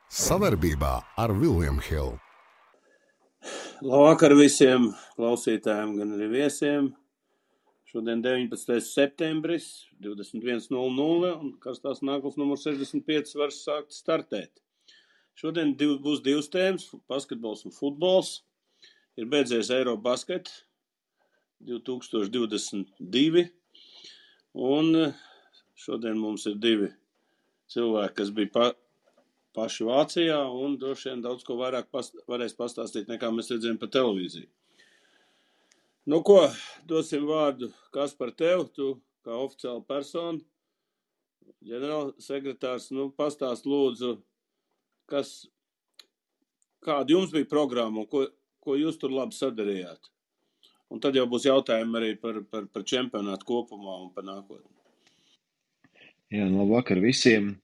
Savarbībā ar William Hill. Labvakar visiem klausītājiem, gan arī viesiem. Šodien 19. septembris, 21:00 un karstās nākotnes numurs 65 var sākt startēt. Šodien būs divas tēmas - basketbols un futbols. Ir beidzies Eirobasket 2022 un šodien mums ir divi cilvēki, kas bija paši Vācijā un droši vien daudz ko vairāk varēs pastāstīt, nekā mēs redzējām pa televīziju. Nu ko, dosim vārdu Kaspar tev, tu kā oficiāla persona, ģenerālsekretārs, pastāst lūdzu, kāda jums bija programma un ko jūs tur labi sadarījāt. Un tad jau būs jautājumi arī par čempionātu kopumā un par nākotni. Jā, labvakar visiem.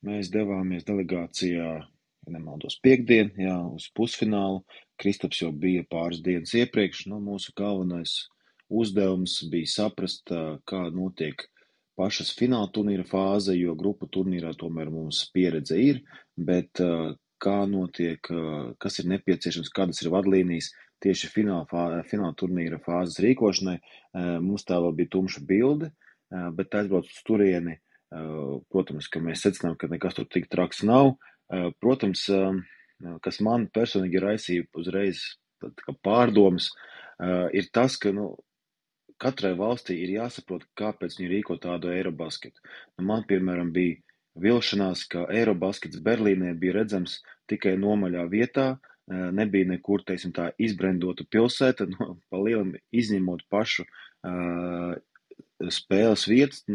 Mēs devāmies delegācijā, ja nemaldos, piekdien, uz pusfinālu. Kristaps jau bija pāris dienas iepriekš. Mūsu galvenais uzdevums bija saprast, kā notiek pašas fināla turnīra fāze, jo grupu turnīrā tomēr mums pieredze ir, bet kā notiek, kas ir nepieciešams, kādas ir vadlīnijas tieši fināla turnīra fāzes rīkošanai. Mums tā vēl bija tumša bilde, bet aizbrauc uz turieni. Protams, ka mēs secinām, ka nekas tur tik traks nav. Protams, kas man personīgi raisīja uzreiz pārdomas, ir tas, ka katrai valstī ir jāsaprot, kāpēc viņi rīko tādu Eirobasketu. Man, piemēram, bija vilšanās, ka Eirobaskets Berlīnē bija redzams tikai nomaļā vietā, nebija nekur, teiksim tā, izbrendota pilsēta, pa lielam izņemot pašu spēles vietas,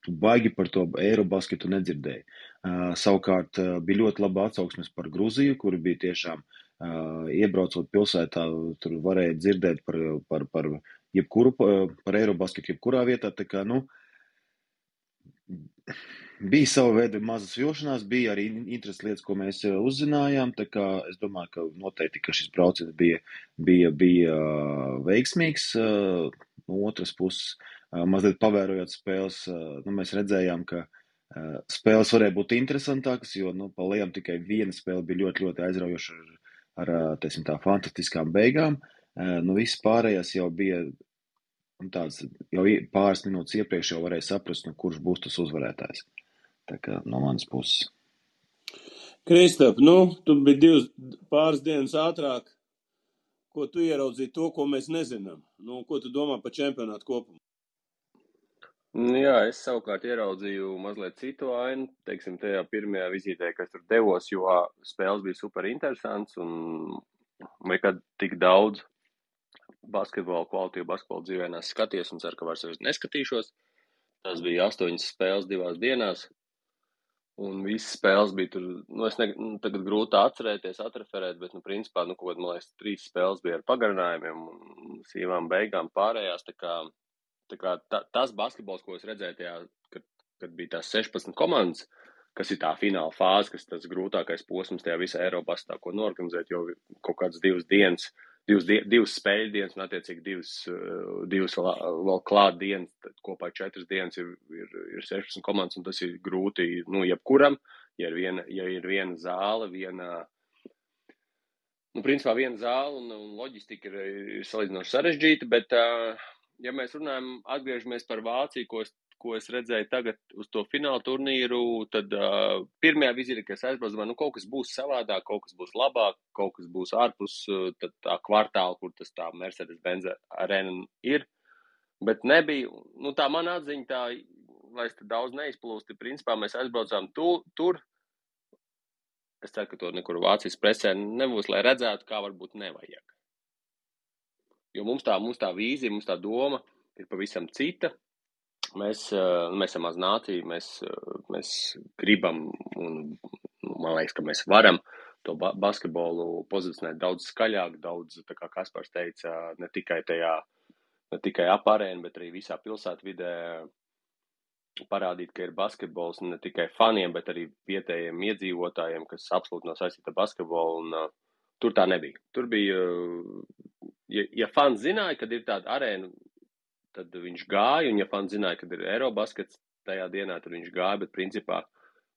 baigi par to Eirobasketu nedzirdēju. Savukārt bija ļoti laba atsauksmes par Gruziju, kuri bija tiešām iebraucot pilsētā, tur varēja dzirdēt par jebkuru, par Eirobasketu jebkurā vietā, tā kā, bija sava veida mazas vilšanās, bija arī interesantas lietas, ko mēs uzzinājām, tā kā es domāju, ka noteikti, ka šis brauciens bija veiksmīgs. No otras puses, mazliet pavērojot spēles, mēs redzējām, ka spēles varēja būt interesantākas, jo, pa lielam tikai viena spēle bija ļoti, ļoti aizraujoša ar teiksim tā, fantastiskām beigām. Viss pārējās jau bija tāds, jau pāris minūtes iepriekš jau varēja saprast, kurš būs tas uzvarētājs. Tā kā no manas puses. Kristap, tu biji pāris dienas ātrāk. Ko tu ieraudzīji to, ko mēs nezinām? Ko tu domā par čempionātu kopumā? Jā, es savukārt ieraudzīju mazliet citu ainu, teiksim, tajā pirmajā vizītē, kas tur devos, jo spēles bija super interesants un nekad tik daudz kvalitīvu basketbolu dzīvē skaties un ceru, ka vairs neskatīšos. Tas bija 8 spēles 2 dienās. Un visas spēles bija tur, tagad grūti atcerēties, atreferēt, bet, principā, kaut kādā, man liekas, 3 spēles bija ar pagarinājumiem un sīvām beigām pārējās, tā kā tas basketbols, ko es redzēju tajā, kad bija tās 16 komandas, kas ir tā fināla fāze, kas tas grūtākais posms tajā visā Eirobastā, ko norganizēt, jo kaut kādas 2 dienas, 2 spēļu dienas un attiecīgi 2 vēl klāt dienas, kopā 4 dienas ir 16 komandas, un tas ir grūti, jebkuram, ja ir viena zāle, principā viena zāle un loģistika ir salīdzinoši sarežģīta, bet, ja mēs runājam, atgriežamies par Vāciju, ko es redzēju tagad uz to fināla turnīru, tad pirmajā vizītē, kas aizbrauc, kaut kas būs savādāk, kaut kas būs labāk, kaut kas būs ārpus tā kvartāla, kur tas tā Mercedes-Benz arēna ir, bet nebija, tā mana atziņa tā, lai es te daudz neizplūsti, principā mēs aizbraucām tur, es ceru, ka to nekur Vācijas presē nebūs, lai redzētu, kā varbūt nevajag. Jo mums tā vīzija, mums tā doma ir pavisam cita. Mēs esam maz nācija, mēs gribam un man liekas, ka mēs varam to basketbolu pozicionēt daudz skaļāk, daudz, tā kā Kaspars teica, ne tikai ap arēnu, bet arī visā pilsētvidē parādīt, ka ir basketbols ne tikai faniem, bet arī vietējiem iedzīvotājiem, kas absolūti nav saistīti ar basketbolu, un tur tā nebija. Tur bija, ja fans zināja, kad ir tāda arēna, tad viņš gāja, un ja fans zināja, kad ir Eirobaskets tajā dienā, tad viņš gāja, bet principā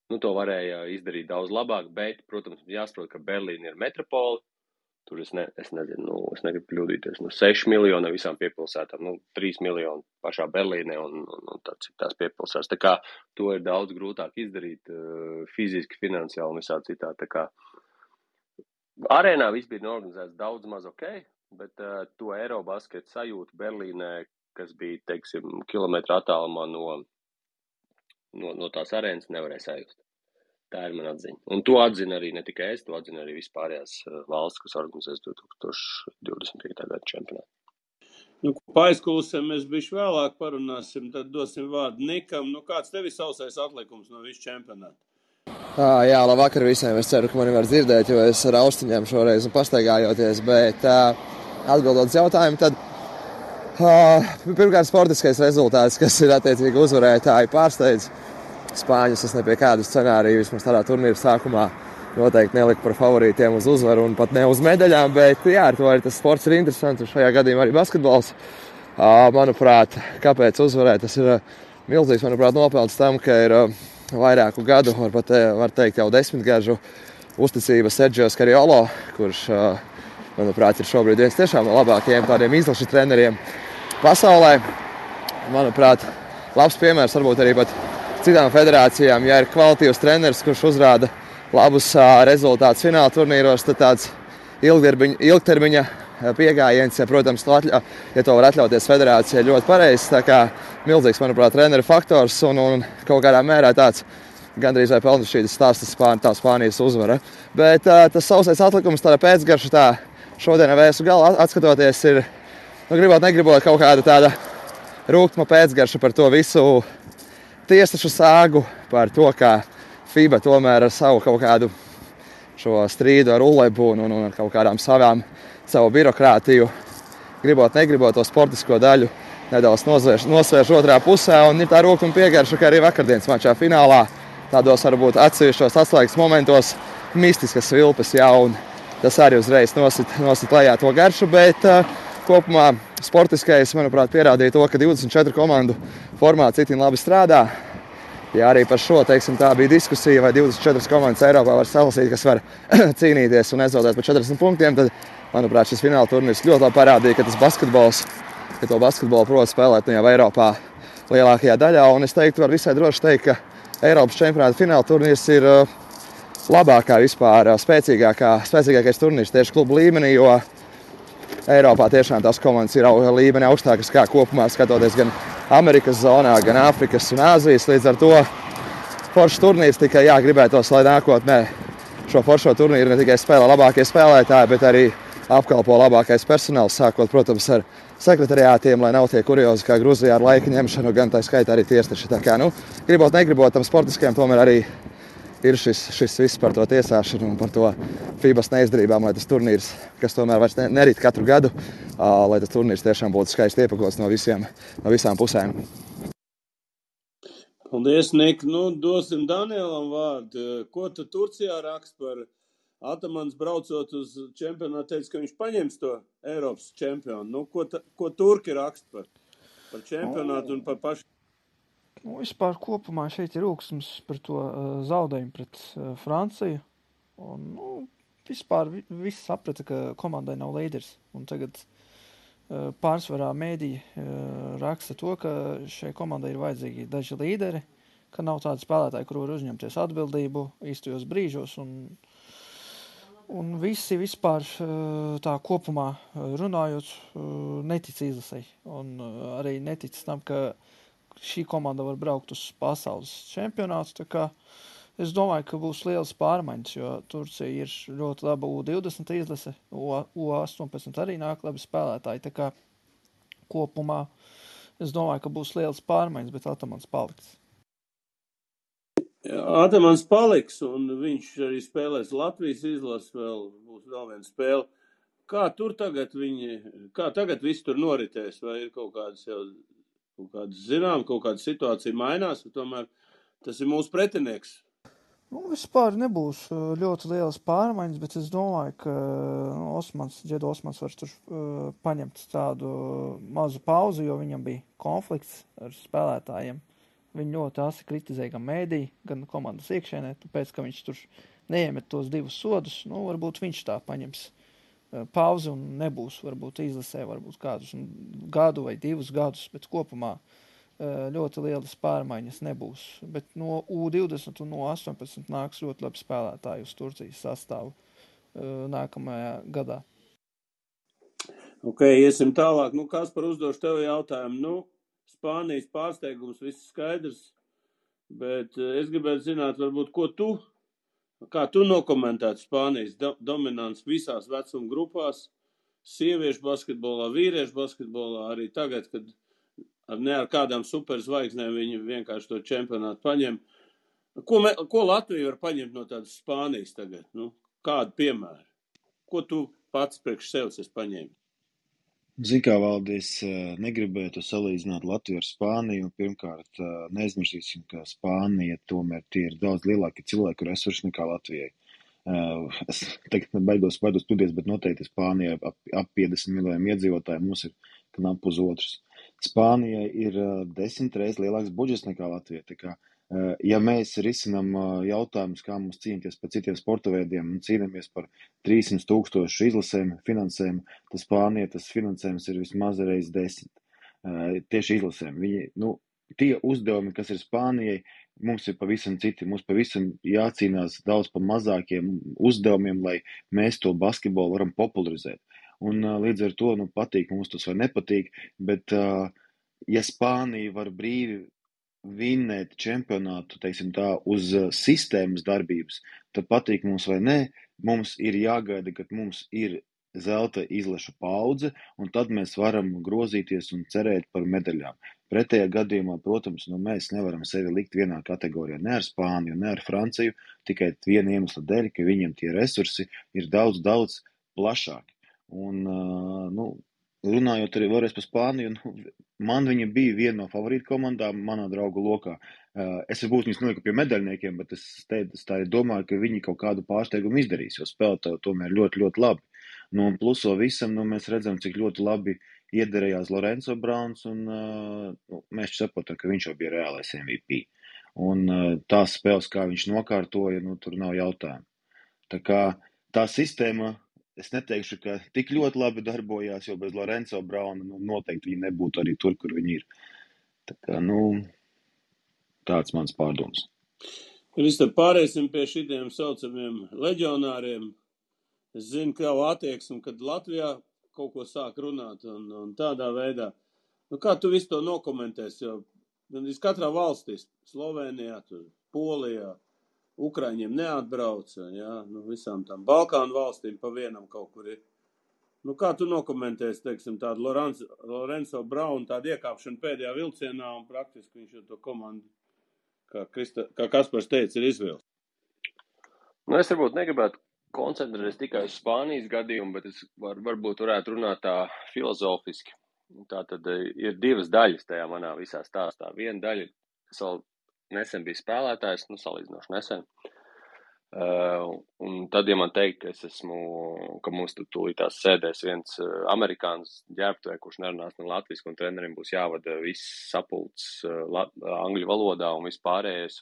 to varēja izdarīt daudz labāk, bet, protams, jāsaprot, ka Berlīna ir metropola. Tur es nezinu, es negribu kļūdīties, 6 miljoni visām piepilsētām, 3 miljoni pašā Berlīnē un tās piepilsētas. Tā kā to ir daudz grūtāk izdarīt fiziski, finansiāli un visā citā. Tā kā arēnā viss bija organizēts daudz maz ok, bet to Eirobasketu sajūtu Berlīnē, kas bija, teiksim, kilometru attālumā no tās arēnas, nevarēja sajust. Tā ir mana atziņa. Un to atzina arī ne tikai es, to atzina arī vispārējās valsts, kas organizēs 2025. gada čempionātu. Pa aizkulisēm mēs bišķi vēlāk parunāsim, tad dosim vārdu Nikam. Kāds tev ir sausais atlikums no visu čempionātu? Jā, labvakar visiem. Es ceru, ka mani var dzirdēt, jo es ar austiņām šoreiz pastaigājoties, bet atbildot uz jautājumu, tad pirmkārt sportiskais rezultāts, kas ir attiecīgi uzvarētāji pārsteidz. Spāņus es ne pie kādu scenāriju vismaz tādā turnīra sākumā noteikti neliku par favorītiem uz uzvaru un pat ne uz medaļām, bet jā, ar to arī tas sports ir interesants un šajā gadījumā arī basketbols. Manuprāt, kāpēc uzvarēt, tas ir milzīgs, nopelns tam, ka ir vairāku gadu, var teikt jau 10 gažu uzticība Sergio Scariolo, kurš, manuprāt, ir šobrīd viens tiešām no labākajiem tādiem izlašu treneriem pasaulē. Manuprāt, labs piemērs varbūt arī pat citām federācijām, ja ir kvalitīvs treneris, kurš uzrāda labus rezultātus fināla turnīros, tad tāds ilgtermiņa piegājiens, ja, protams, ja to var atļauties federācija, ļoti pareizs. Tā kā milzīgs, manuprāt, treneru faktors un kaut kādā mērā tāds gandrīz vai pelnušķītas stāstas tā Spānijas uzvara. Bet tas sausais atlikums, tāda pēcgarša, tā šodien vēsu galā atskatoties, ir, negribot kaut kāda tāda rūgtuma pēcgarša par to visu tiesašu sāgu, par to, ka FIBA tomēr ar savu kaut kādu šo strīdu ar ULEBu un ar kaut kādām savu birokrātiju, negribot to sportisko daļu nedaudz nosvērš otrā pusē, un ir tā rūgtuma piegarša, ka arī vakardienas mačā finālā tādos varbūt atsevišķos atslēgas momentos mistiskas vilpes, jā, un tas arī uzreiz nosit lejā to garšu, bet kopumā sportiskais, manuprāt, pierādīja to, ka 24 komandu formāts itin labi strādā. Ja arī par šo, teiksim, tā bija diskusija, vai 24 komandas Eiropā var salasīt, kas var cīnīties un nezaudēt par 40 punktiem, tad, manuprāt, šis fināla turnīrs ļoti labi parādīja, ka to basketbolu prot spēlēt jau Eiropā lielākajā daļā. Un es teiktu, var visai droši teikt, ka Eiropas čempionāta fināla turnīrs ir labākā vispār, spēcīgākais turnīrs tieši klubu līmenī, jo Eiropā tiešām tās komandas ir līmeni augstākas kā kopumā, skatoties gan Amerikas zonā, gan Āfrikas un Āzijas. Līdz ar to foršs turnīrs tikai gribētos, lai nākotnē šo foršo turnīru ne tikai spēlē labākie spēlētāji, bet arī apkalpo labākais personāls, sākot, protams, ar sekretariātiem, lai nav tie kuriozi kā Gruzijā ar laika ņemšanu, gan tā skaitā arī tiesneši. Tā kā, negribot tam sportiskajam, tomēr arī ir šis viss par to tiesāšanu un par to FIBAs neizdarībām, lai tas turnīrs, kas tomēr vairs nerit katru gadu, lai tas turnīrs tiešām būtu skaisti iepakots no visām pusēm. Paldies, Nik. Dosim Danielam vārdu. Ko tu Turcijā rakst par Atamans braucot uz čempionātu, teica, ka viņš paņems to Eiropas čempionu. Ko turki rakst par čempionātu un par pašu? Vispār kopumā šeit ir rūksums par to zaudējumu pret Franciju. Un, vispār viss saprata, ka komandai nav līderis. Un tagad pārsvarā mēdī raksta to, ka šai komandai ir vajadzīgi daži līderi, ka nav tādi spēlētāji, kur var uzņemties atbildību īstajos brīžos. Un visi vispār tā kopumā runājot netic izlasei. Un arī netic tam, ka šī komanda var braukt uz pasaules čempionātu, tā kā es domāju, ka būs lielas pārmaiņas, jo Turcija ir ļoti laba U20 izlase, U18 arī nāk labi spēlētāji, tā kā kopumā es domāju, ka būs lielas pārmaiņas, bet Atamans paliks. Atamans paliks, un viņš arī spēlēs Latvijas izlases, būs vēl viena spēle. Kā tagad viss tur noritēs, vai ir kaut kādas situācija mainās, tomēr tas ir mūsu pretinieks. Vispār nebūs ļoti lielas pārmaiņas, bet es domāju, ka Džedu Osmans var tur paņemt tādu mazu pauzi, jo viņam bija konflikts ar spēlētājiem viņu ļoti asi kritizēja gan mēdī, gan komandas iekšēnē, tāpēc, ka viņš tur neiemet tos 2 sodus, nu, varbūt viņš tā paņems pauzi un nebūs, varbūt izlasē, varbūt kādus gadu vai 2 gadus, bet kopumā ļoti lielas pārmaiņas nebūs. Bet no U20 un no 18 nāks ļoti labi spēlētāji uz Turcijas sastāvu nākamajā gadā. Ok, iesim tālāk. Kaspar, uzdošu tev jautājumu. Spānijas pārsteigums, viss skaidrs, bet es gribētu zināt, varbūt, kā tu nokomentētu Spānijas dominants visās vecuma grupās, sieviešu basketbolā, vīriešu basketbolā, arī tagad, kad ne ar kādām superzvaigznēm viņi vienkārši to čempionātu paņem. Ko Latvija var paņemt no tādas Spānijas tagad? Kādu piemēru? Ko tu pats priekš sevis esi paņēmis? Zini, kā Valdi, es negribētu salīdzināt Latviju ar Spāniju. Pirmkārt, neaizmirsīsim, ka Spānija tomēr tie ir daudz lielāki cilvēku resursi nekā Latvijai. Es tagad baidos studijas, bet noteikti Spānijai ap 50 miljoniem iedzīvotāju mums ir knap uz otrs. Spānijai ir 10 reizes lielāks budžets nekā Latvijai. Tā kā, ja mēs risinām jautājumus, kā mums cīnīties par citiem sporta veidiem un cīnāmies par 300,000 izlasēm, finansēm, tad Spānija tas finansējums ir vismaz reiz 10. Tieši izlasēm. Tie uzdevumi, kas ir Spānijai, mums ir pavisam citi. Mums pavisam jācīnās daudz par mazākiem uzdevumiem, lai mēs to basketbolu varam popularizēt. Un līdz ar to, patīk mums tas vai nepatīk, bet ja Spānija var brīvi vinnēt čempionātu, teiksim tā, uz sistēmas darbības, tad patīk mums vai nē, mums ir jāgaida, kad mums ir zelta izlašu paudze, un tad mēs varam grozīties un cerēt par medaļām. Pretējā gadījumā, protams, mēs nevaram sevi likt vienā kategorijā, ne ar Spāniju, ne ar Franciju, tikai viena iemesla dēļ, ka viņiem tie resursi ir daudz, daudz plašāki. Un, runājot arī vēlreiz par Spāniju, man viņa bija viena no favorīta komandām manā draugu lokā. Es varbūt viņus noliku pie medaļniekiem, bet es tā arī domāju, ka viņi kaut kādu pārsteigumu izdarīs, jo spēlētāji tomēr ļoti, ļoti labi. Un pluso visam, mēs redzam, cik ļoti labi iederējās Lorenzo Brauns, un mēs saprotam, ka viņš jau bija reālais MVP. Un tās spēles, kā viņš nokārtoja, tur nav jautājumu. Tā kā tā sistēma, es neteikšu, ka tik ļoti labi darbojās, jo bez Lorenzo Brauna noteikti viņi nebūtu arī tur, kur viņi ir. Tā kā, tāds mans pārdoms. Mēs tad pārēsim pie šitiem saucamiem leģionāriem. Es zinu, ka jau attieksmi, kad Latvijā kaut ko sāk runāt un tādā veidā. Kā tu visu to nokomentēsi? Jo katrā valstī, Slovenijā, Polijā, Ukraiņiem neatbrauca, visām tām Balkānu valstīm pa vienam kaut kur ir. Kā tu nokomentēsi, teiksim, tādu Lorenzo Braunu, tādu iekāpšanu pēdējā vilcienā un praktiski viņš jau to komandu, kā Kaspars teica, ir izvilcis? Es varbūt negribētu koncentrēties tikai uz Spānijas gadījumu, bet es varbūt varētu runāt tā filozofiski. Tā tad ir 2 daļas tajā manā visā stāstā. Viena daļa, kas vēl nesen bija spēlētājs, salīdzinoši nesen. Un tad, ja man teikt, ka mums tūlītās sēdēs viens amerikāns ģērbtuvē, kurš nerunās ne latviski, un trenerim būs jāvada viss sapulcs angļu valodā un viss pārējais,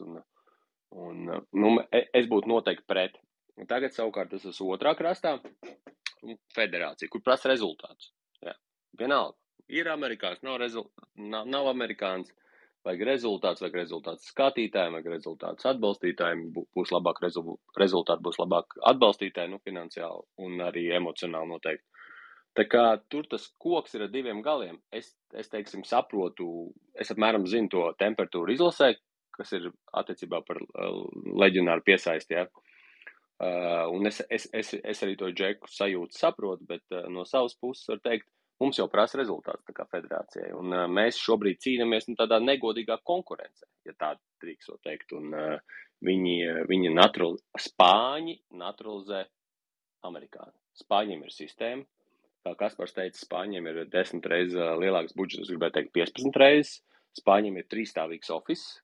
es būtu noteikti pret. Un tagad savukārt tas ir otrā krastā federācija, kur prasa rezultātus. Jā. Vienalga, ir amerikāns, nav amerikāns, vajag rezultāts skatītājiem, vajag rezultāts atbalstītājiem, būs labāk rezultāti, būs labāk atbalstītāji, finansiāli un arī emocionāli noteikti. Tā kā tur tas koks ir ar 2 galiem. Es teiksim, saprotu, es apmēram zinu to temperatūru izlasē, kas ir attiecībā par leģionāru piesaisti, jā. Un es arī to Džeku sajūtu saprotu, bet no savas puses var teikt, mums jau prasa rezultāts tā kā federācijai, un mēs šobrīd cīnamies tādā negodīgā konkurencē, ja tā drīkst teikt, un viņi Spāņi naturalizē amerikāni. Spāņiem ir sistēma, kā Kaspars teica, Spāņiem ir 10 reizes lielāks budžets, es gribētu teikt 15 reizes, Spāņiem ir 3-stāvīgs office,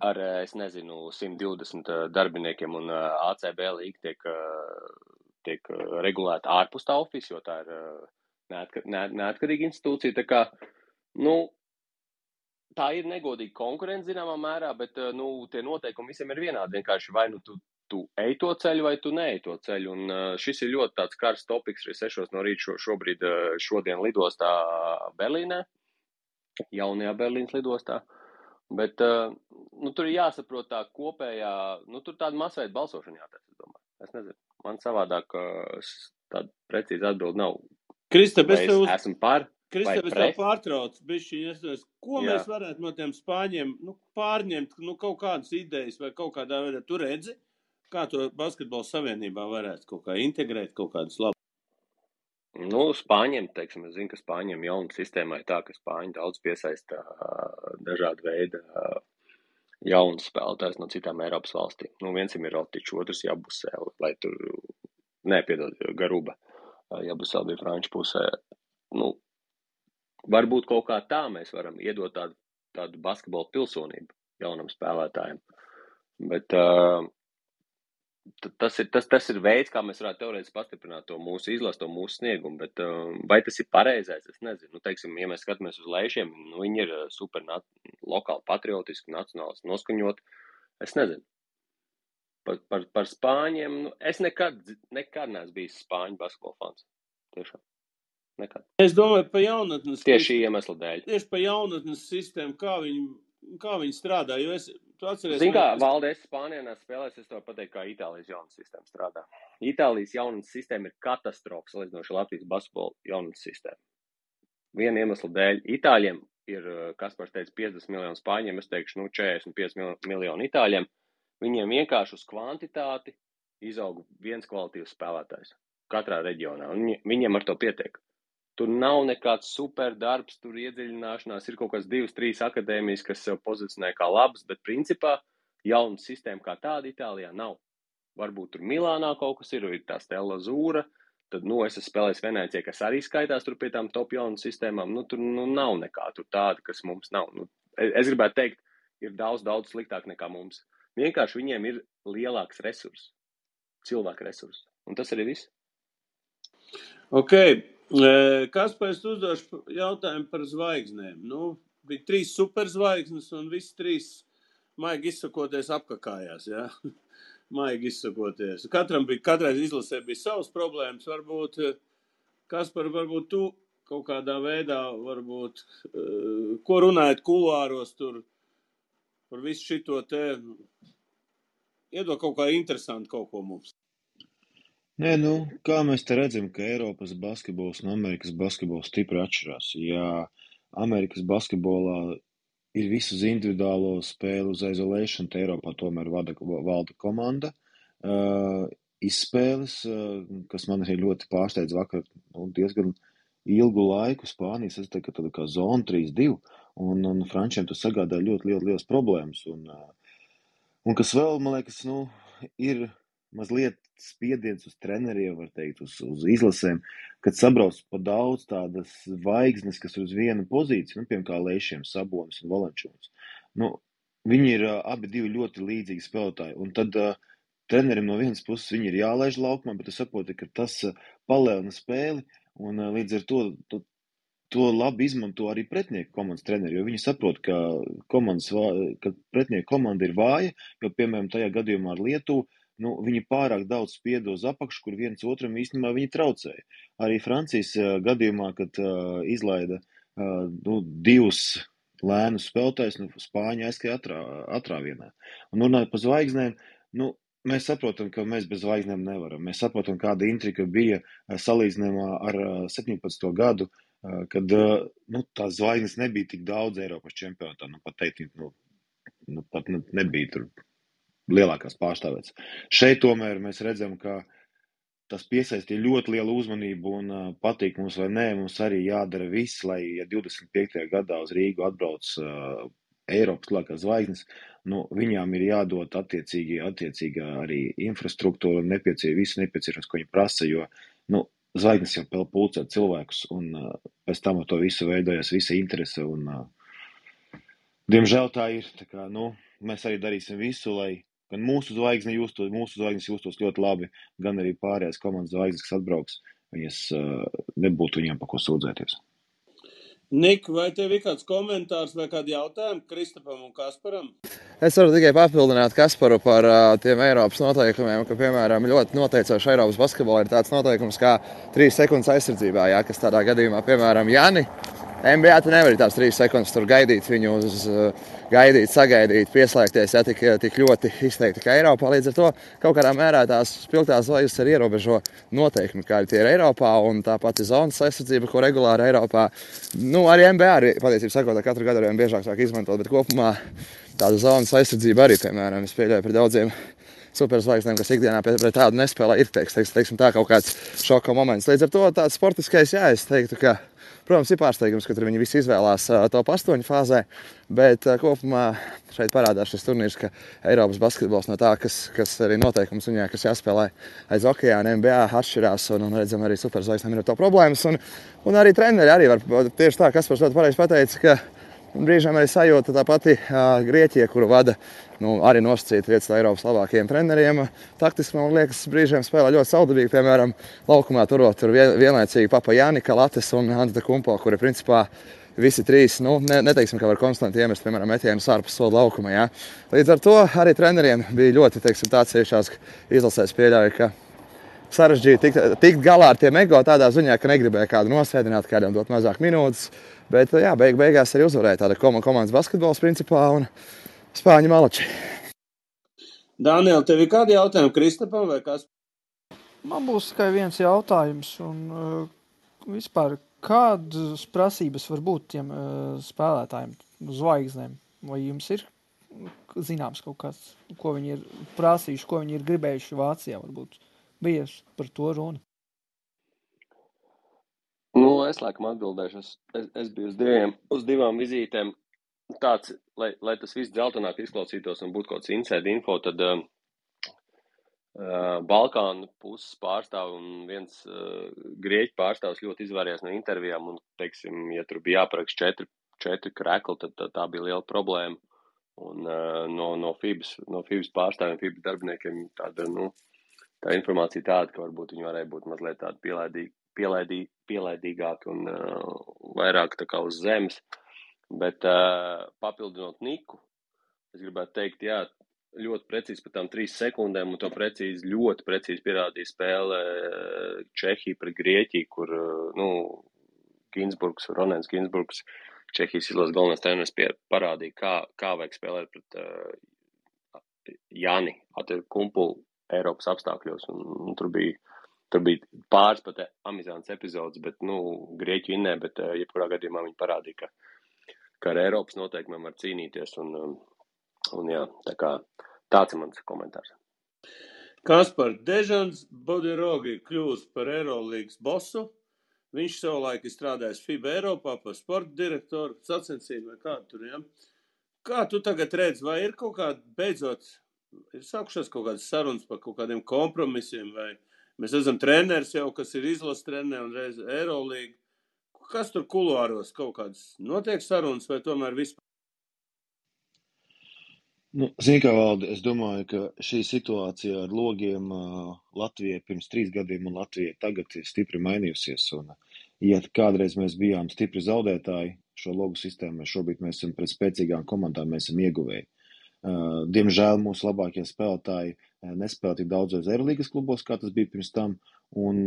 ar, 120 darbiniekiem, un ACB līga tiek regulēta ārpus tā office, jo tā ir neatkarīga institūcija. Tā kā, tā ir negodīga konkurence zināmā mērā, bet tie noteikumi visiem ir vienādi. Vienkārši vai nu tu ej to ceļu, vai tu neej to ceļu. Un šis ir ļoti tāds karsts topiks arī 6 no rīta šodien lidostā Berlīnē, jaunajā Berlīnas lidostā. Bet tur ir jāsaprot tā kopējā, tur tāda masveida balsošana jātēc, es domāju. Es nezinu, man savādāk tāda precīza atbilde nav. Kristap, vai es esmu par, vai Kristap, es tev pārtraucu, bišķiņ, ko mēs varētu no tiem spāņiem pārņemt, kaut kādas idejas vai kaut kādā veidā tu redzi, kā to basketbola savienībā varētu kaut kā integrēt, kaut kādus labus? Spāņiem, teiksim, es zinu, ka Spāņiem jauna sistēma ir tā, ka Spāņi daudz piesaista dažādu veidu jaunus spēlētājus no citām Eiropas valstīm. Viens ir Rotičs, otrs Jabusēl, lai tur, Garuba, Jabusēl bija franču pusē. Varbūt kaut kā tā mēs varam iedot tādu basketbola pilsonību jaunam spēlētājiem. Bet tas ir veids, kā mēs varētu teorētiski pastiprināt to mūsu izlasu, to mūsu sniegumu, bet vai tas ir pareizais, es nezinu. Teiksim, ja mēs skatāmies uz Leišiem, viņi ir super lokāli patriotiski, nacionālisti noskaņot, es nezinu. Par Spāņiem, es nekad neesmu bijis Spāņu basketbola fans. Tiešām. Nekad. Es domāju, pa jaunatnes... Tieši iemesla dēļ. Tieši pa jaunatnes sistēmu, kā viņi strādā, jo tu atceries... Zini kā, Valde, es Spānijā spēlēs, es tev pateiktu, kā Itālijas jaunas sistēma strādā. Itālijas jaunas sistēma ir katastrofa salīdzinoši Latvijas basketbola jaunas sistēma. Viena iemesla dēļ Itāļiem ir, Kaspars teica, 50 miljonu Spāņiem, es teikšu, 45 miljonu Itāļiem. Viņiem vienkārši uz kvantitāti izaug viens kvalitīvs spēlētājs katrā reģionā, un viņiem ar to pietiek. Tur nav nekāds super darbs, tur iedziļināšanās, ir kaut kāds 2-3 akadēmijas, kas sev pozicionē kā labas, bet principā jauna sistēma kā tāda Itālijā nav. Varbūt tur Milānā kaut kas ir tā Stella Zūra, tad, es esmu spēlējis Venēcijā, kas arī skaitās tur pie tām top jaunu sistēmām, tur nav nekā tur tāda, kas mums nav. Es gribētu teikt, ir daudz sliktāk nekā mums. Vienkārši viņiem ir lielāks resurss, cilvēku resurss, un tas arī viss. Ok. Kaspars uzdošu jautājumu par zvaigznēm. Bija 3 superzvaigznes un visi 3 maigi izsakoties apkakājās, jā? Maigi izsakoties. Katrai izlasē bija savas problēmas. Varbūt, Kaspar, varbūt tu kaut kādā veidā, ko runājat kuluāros tur par visu šito te, iedod kaut kā interesanti kaut ko mums. Nē, kā mēs te redzam, ka Eiropas basketbols un Amerikas basketbols stipri atšķirās. Ja Amerikas basketbolā ir visu uz individuālo spēli uz isolation, te Eiropā tomēr valda komanda. Izspēles, kas man arī ļoti pārsteidz vakar, diezgan ilgu laiku Spānijas, es teiktu, ka tāda kā zona 3-2, un frančiem tas sagādā ļoti liels problēmas. Un kas vēl, man liekas, ir mazliet spiediens uz treneriem, var teikt, uz izlasēm, kad sabrauc pa daudz tādas zvaigznes, kas ir uz vienu pozīciju, piemēram, kā Leišiem, Sabonis un Valančūns. Viņi ir abi divi ļoti līdzīgi spēlētāji, un tad trenerim no vienas puses viņi ir jālaiž laukumā, bet es saprotu, ka tas palielina spēli, un līdz ar to labi izmanto arī pretinieku komandas treneri, jo viņi saprot, ka pretinieku komanda ir vāja, jo, piemēram, tajā gadījumā ar Lietuvu, viņi pārāk daudz spieda uz apakšu, kur viens otram īstenībā viņi traucēja. Arī Francijas gadījumā, kad izlaida 2 lēnus spēlētājus, Spāņi aizskrēja atrāvienā. Un runājot par zvaigznēm, mēs saprotam, ka mēs bez zvaigznēm nevaram. Mēs saprotam, kāda intriga bija salīdzinājumā ar 17. gadu, kad tās zvaigznes nebija tik daudz Eiropas čempionātā. Pat teikt, pat nebija tur lielākās pārstāvētas. Šeit tomēr mēs redzam, ka tas piesaistīja ļoti lielu uzmanību un patīk mums vai nē, mums arī jādara viss, lai, ja 25. gadā uz Rīgu atbrauc Eiropas lielākās zvaigznes, viņām ir jādod attiecīgi arī infrastruktūra un visu nepieciešams, ko viņi prasa, jo, zvaigznes jau pulcē cilvēkus un pēc tam to visu veidojas visa interese un, diemžēl tā ir, tā kā, mēs arī darīsim visu, lai gan mūsu zvaigznes justos ļoti labi, gan arī pārējās komandas zvaigznes, kas atbrauks, viņas nebūtu viņām pa ko sūdzēties. Nik, vai tev ir kāds komentārs vai kādi jautājumi Kristapam un Kasparam? Es varu tikai papildināt Kasparu par tiem Eiropas noteikumiem, ka, piemēram, ļoti noteicoši Eiropas basketbolā ir tāds noteikums kā 3 sekundes aizsardzībā, jā, kas tādā gadījumā, piemēram, Jani, NBA tu nevari tās 3 sekundes tur gaidīt viņu uz gaidīt, sagaidīt, pieslēgties, ja tik ļoti izteikti kā Eiropā. Līdz ar to kaut kādā mērā tās spilgtās zvaigznes arī ierobežo noteikumi, kādi tie ir Eiropā, un tā pati zonas aizsardzība, ko regulāri Eiropā, nu, arī NBA arī, patiesībā sakot, katru gadu arī biežāk sāk izmantot, bet kopumā tāda zonas aizsardzība arī, piemēram, es pieļauju par daudziem superzvaigznēm, kas ikdienā pret tādu nespēlē, ir teiksim, tā kaut kāds šoka moments. Līdz ar to tāds sportiskais, jā, es teiktu, ka, protams, ir pārsteigums, ka tur viņi visi izvēlās top 8 fāzē, bet kopumā šeit parādās šis turnīrs, ka Eiropas basketbols no tā, kas arī noteikums viņā, kas jāspēlē aiz okeāna, NBA atšķirās, un redzam, arī superzvaigznēm ir to problēmas, un arī treneri arī var tieši tā, Kaspars ļoti pareizi pateica, ka brīžiem arī sajūta tā pati Grieķija, kuru vada arī nosacīta vietas Eiropas labākajiem treneriem. Taktiski, man liekas, brīžiem spēlē ļoti saudabīgi, piemēram, laukumā turot tur vienlaicīgi Papa Jānika, Lates un Antetokumpo, kuri principā visi trīs, neteiksim, ka var konstanti iemest, piemēram, metienus ārpus soda laukuma. Jā. Līdz ar to arī treneriem bija ļoti, tāds ciešās izlasēs pieļauja, ka sarežģīti tikt galā ar tiem ego tādā ziņā, ka negribēja kādu nosēdināt, kādam dot mazāk minūtes. Bet, jā, beigās arī uzvarēja tāda komandas basketbols principā un spāņu malači. Daniel, tev ir kādi jautājumi Kristapam vai kas? Man būs tikai viens jautājums, un vispār kādas prasības var būt tiem spēlētājiem, zvaigznēm? Vai jums ir zināms kaut kāds, ko viņi ir prasījuši, ko viņi ir gribējuši Vācijā, varbūt bijuši par to runa? Nu, es laikam atbildēšu. Es biju uz divām vizītēm. Tāds, lai tas viss dzeltenāk izklausītos un būtu kaut kāds inside info, tad Balkānu puses pārstāv un viens Grieķu pārstāvs ļoti izvairījās no intervijām un, teiksim, ja tur bija jāparaksta 4 krekli, tad tā bija liela problēma. Un no FIBAS pārstāvjiem, FIBAS darbiniekiem tā informācija tāda, ka varbūt viņi varēja būt mazliet tādi pielaidīgāki un vairāk tā kā uz zemes. Bet papildinot Niku, es gribētu teikt, jā, ļoti precīzi par tām 3 sekundēm, un to ļoti precīzi pierādīja spēle Čehija pret Grieķiju, kur, Ronens Ginsburgs, Čehijas izlases galvenais treneris parādīja, kā vajag spēlēt pret Jani Antetokumpu Eiropas apstākļos, un tur bija pāris pat amizants epizodes, bet, Grieķu innē, bet jebkurā gadījumā viņi parādīja, ka ar Eiropas noteikumiem var cīnīties, un jā, tā kā tāds ir mans komentārs. Kaspar, Dežans Bodirogi kļūst par Eirolīgas bosu. Viņš savulaik ir strādājis FIBA Eiropā par sporta direktoru, sacensību vai kādu tur, ja? Kā tu tagad redzi, vai ir kaut kāda, beidzot, ir sākušās kaut kādas sarunas par kaut kādiem kompromisiem, vai mēs esam treneris jau, kas ir izlases treneri un reiz Eirolīga. Kas tur kuluāros kaut kādas notiek sarunas vai tomēr vispār? Zini kā, Valdi, es domāju, ka šī situācija ar logiem Latvijai pirms 3 gadiem un Latvijai tagad ir stipri mainījusies. Un, ja kādreiz mēs bijām stipri zaudētāji šo logu sistēmu, šobrīd mēs esam pret spēcīgām komandām, mēs esam ieguvēji. Diemžēl mūsu labākie spēlētāji nespēlē tik daudzos Eirolīgas klubos, kā tas bija pirms tam. Un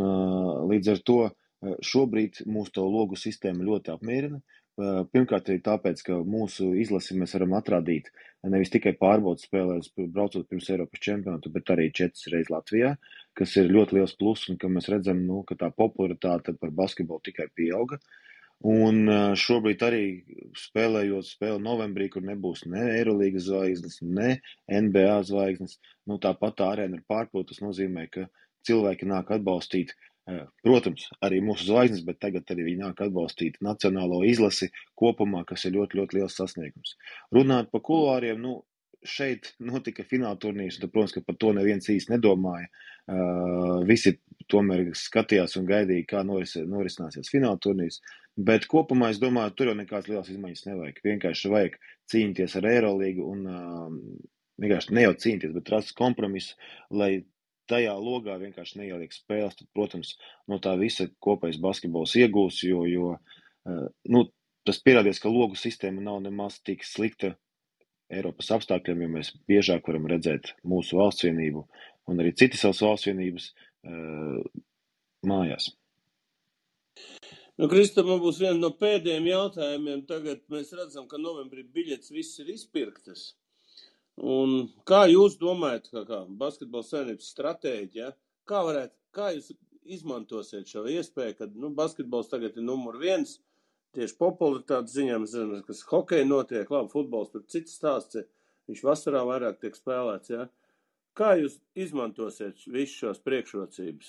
līdz ar to šobrīd mūsu to logu sistēma ļoti apmierina. Pirmkārt arī tāpēc, ka mūsu izlasi mēs varam atrādīt nevis tikai pārbaudas spēlēs, braucot pirms Eiropas čempionātu, bet arī 4 reizes Latvijā, kas ir ļoti liels pluss un ka mēs redzam, ka tā popularitāte par basketbolu tikai pieauga. Un šobrīd arī spēlējot spēli novembrī, kur nebūs ne Eirolīgas zvaigznes, ne NBA zvaigznes, tāpat tā arēna ir pārpilta. Tas nozīmē, ka cilvēki nāk atbalstīt, protams, arī mūsu zvaigznes, bet tagad arī viņi nāk atbalstīt nacionālo izlasi kopumā, kas ir ļoti, ļoti liels sasniegums. Runāt par kuluāriem, šeit notika fināla turnīrs, un, protams, ka par to neviens īsti nedomāja. Visi tomēr skatījās un gaidīja, kā norisināsies fināla turnīrs, bet kopumā es domāju, tur jau nekāds liels izmaiņas nevajag. Vienkārši vajag cīnīties ar Eirolīgu un vienkārši ne jau cīnīties, bet rast kompromisu, lai tajā logā vienkārši neieliek spēles, tad, protams, no tā visa kopējais basketbols iegūs, jo tas pierādījis, ka logu sistēma nav nemaz tik slikta Eiropas apstākļiem, jo mēs biežāk varam redzēt mūsu valsts vienību un arī citas savas valsts vienības mājās. Nu, Kristap, man būs viena no pēdējiem jautājumiem. Tagad mēs redzam, ka novembrī biļetes viss ir izpirktas. Un kā jūs domājat, kā Basketbola savienības stratēģija, kā jūs izmantosiet šo iespēju, kad basketbols tagad ir numur 1, tieši popularitātes ziņā, mēs zinām, kas hokeja notiek, labi, futbols, tur cits stāsts, viņš vasarā vairāk tiek spēlēts, ja? Kā jūs izmantosiet visu šos priekšrocības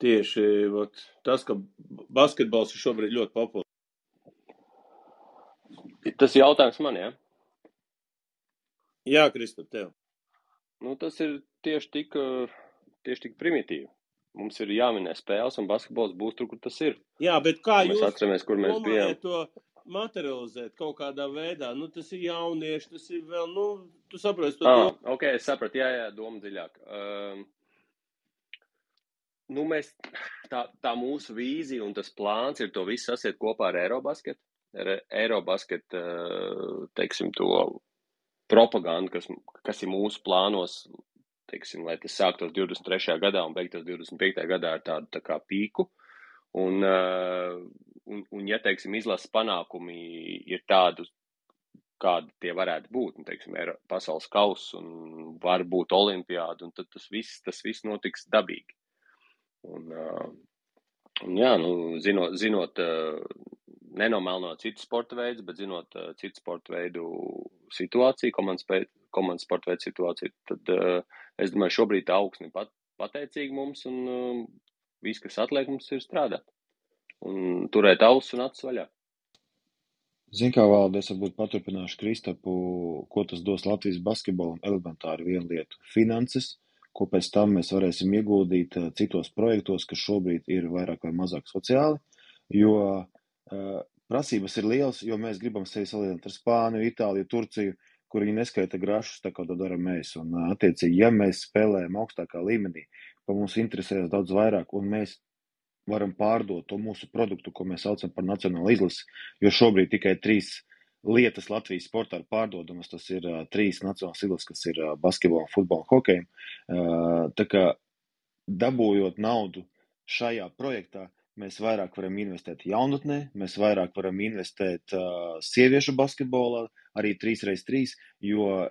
tieši tas, ka basketbols ir šobrīd ļoti populārs? Tas jautājums man, ja? Jā, Kristap, tev. Tas ir tieši tik primitīvi. Mums ir jāminē spēles, un basketbols būs tur, kur tas ir. Jā, bet kā mēs atceramies, kur mēs bijām? To materializēt kaut kādā veidā? Tas ir jaunieši, tas ir vēl, tu saproti to. Ok, es sapratu, jā, doma dziļāk. Tā mūsu vīzija un tas plāns ir to visu sasiet kopā ar Eirobasket. Eirobasket, teiksim, to propagandu, kas ir mūsu plānos, teiksim, lai tas sāktos 23. gadā un beigtos 25. gadā ar tādu tā kā pīku. Un ja, teiksim, izlases panākumi ir tādu, kādi tie varētu būt, teiksim, pasaules kauss un var būt olimpiāda, un tad tas viss notiks dabīgi. Un jā, zinot nenomelnot citu sporta veidus, bet zinot citu sporta veidu situāciju, komandas sporta veidu situāciju, tad es domāju, šobrīd tā augsne pateicīgi mums, un viss, kas atliek, mums ir strādāt. Un turēt ausis un acis vaļā. Zin kā, Valdi, es varbūt paturpināšu Kristapu, ko tas dos Latvijas basketbolam, elementāri vienu lietu - finanses, ko pēc tam mēs varēsim ieguldīt citos projektos, kas šobrīd ir vairāk vai mazāk sociāli, jo prasības ir lielas, jo mēs gribam sevi salīdzināt ar Spāniju, Itāliju, Turciju, kur viņi neskaita grašus, tā kā to dara mēs. Un, attiecīgi, ja mēs spēlējam augstākā līmenī, pa mums interesējas daudz vairāk, un mēs varam pārdot to mūsu produktu, ko mēs saucam par nacionālu izlasi, jo šobrīd tikai 3 lietas Latvijas sportā ir pārdodamas, tas ir 3 nacionālas izlases, kas ir basketbolam, futbolam, hokejam. Tā kā dabūjot naudu šajā projektā, mēs vairāk varam investēt jaunatnē, mēs vairāk varam investēt sieviešu basketbolā, arī 3x3, jo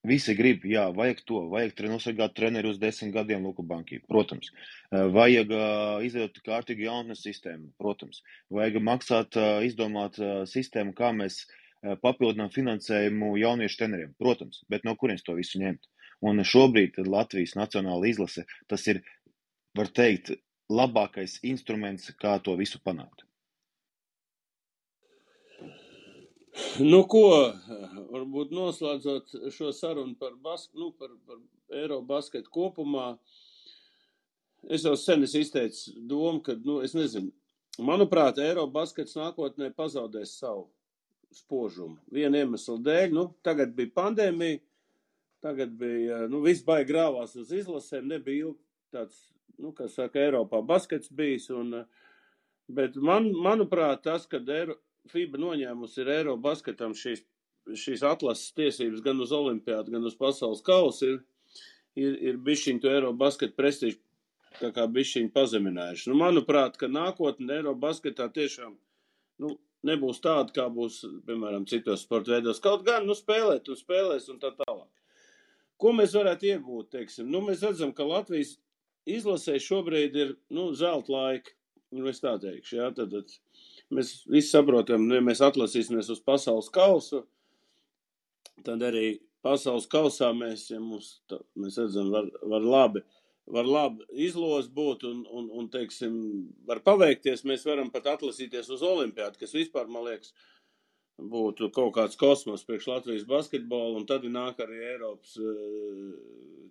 visi grib, jā, vajag to, vajag nosargāt treneri uz 10 gadiem Luku Banki, protams. Vajag izveidot kārtīgu jaunatnes sistēmu, protams. Vajag maksāt, izdomāt sistēmu, kā mēs papildinām finansējumu jauniešu treneriem, protams, bet no kurienes to visu ņemt. Un šobrīd Latvijas nacionāla izlase, tas ir, var teikt, labākais instruments, kā to visu panākt. Ko, varbūt noslēdzot šo sarunu par Eirobasketu kopumā, es jau sen izteicu domu, ka, es nezinu, manuprāt, Eirobaskets nākotnē pazaudēs savu spožumu. Viena iemesla dēļ, tagad bija pandēmija, tagad bija, viss baigi grāvās uz izlasēm, nebija ilgi tāds, kā saka, Eiropā baskets bijis, bet manuprāt, tas, kad FIBA noņēmusi ir Eirobasketam šīs atlases tiesības gan uz olimpiādu, gan uz pasaules kausu, ir bišķiņ to Eirobasketu prestižu tā kā bišķiņ pazeminājuši. Manuprāt, ka nākotnē Eirobasketā tiešām, nebūs tāda, kā būs, piemēram, citos sporta veidos. Kaut gan, spēlēt un spēlēs un tā tālāk. Ko mēs varētu iegūt, teiksim? Mēs redzam, ka Latvijas izlasē šobrīd ir, zelta laika. Es tā teikšu, jā, tad mēs visi saprotam, ja mēs atlasīsimies uz pasaules kausu, tad arī pasaules kausā mēs redzam, var labi izlos būt un, teiksim, var paveikties, mēs varam pat atlasīties uz olimpiādu, kas vispār, man liekas, būtu kaut kāds kosmos priekš Latvijas basketbolu, un tad nāk arī Eiropas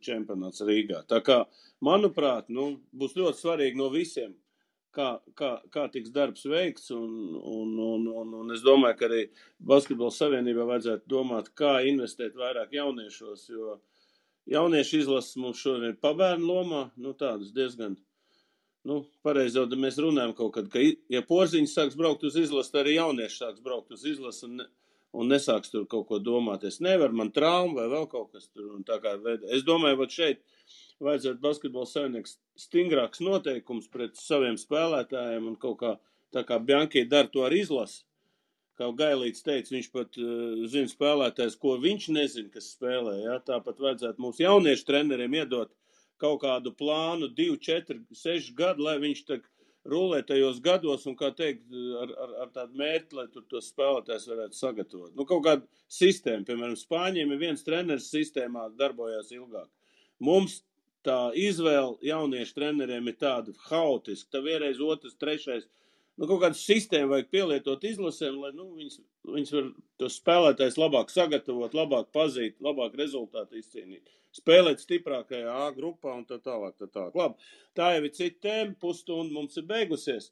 čempionāts Rīgā. Tā kā, manuprāt, būs ļoti svarīgi no visiem, kā tiks darbs veikts, un es domāju, ka arī Basketbola savienībā vajadzētu domāt, kā investēt vairāk jauniešos, jo jauniešu izlases mums šodien ir pabērnu lomā, tādas diezgan, pareizi jau mēs runājam kaut kad, ka, ja Porziņš sāks braukt uz izlasu, arī jaunieši sāks braukt uz izlasu un nesāks tur kaut ko domāt. Es nevaru, man trauma vai vēl kaut kas tur. Un tā kā es domāju, ka šeit vajadzētu basketbola savienības stingrāks noteikums pret saviem spēlētājiem un kaut kā, tā kā Bianchi dara to ar izlasu. Kā Gailīts teica, viņš pat zina spēlētājs, ko viņš nezina, kas spēlē. Ja? Tāpat vajadzētu mūsu jauniešu treneriem iedot kaut kādu plānu 2, 4, 6 gadu, lai viņš tā rulē tajos gados un, kā teikt, ar tādu mērķi, lai tur tos spēlētājs varētu sagatavot. Kaut kāda sistēma, piemēram, Spāņiem ir viens treneris sistēmā darbojās ilgāk. Mums tā izvēle jauniešu treneriem ir tāda haotiska, tā vienreiz, otrs, trešais. Kaut kādu sistēmu vajag pielietot izlasēm, lai viņas var tos spēlētājs labāk sagatavot, labāk pazīt, labāk rezultātu izcīnīt. Spēlēt stiprākajā A grupā un tā tālāk. Labi, tā jau ir cita tēma, pusstunda mums ir beigusies.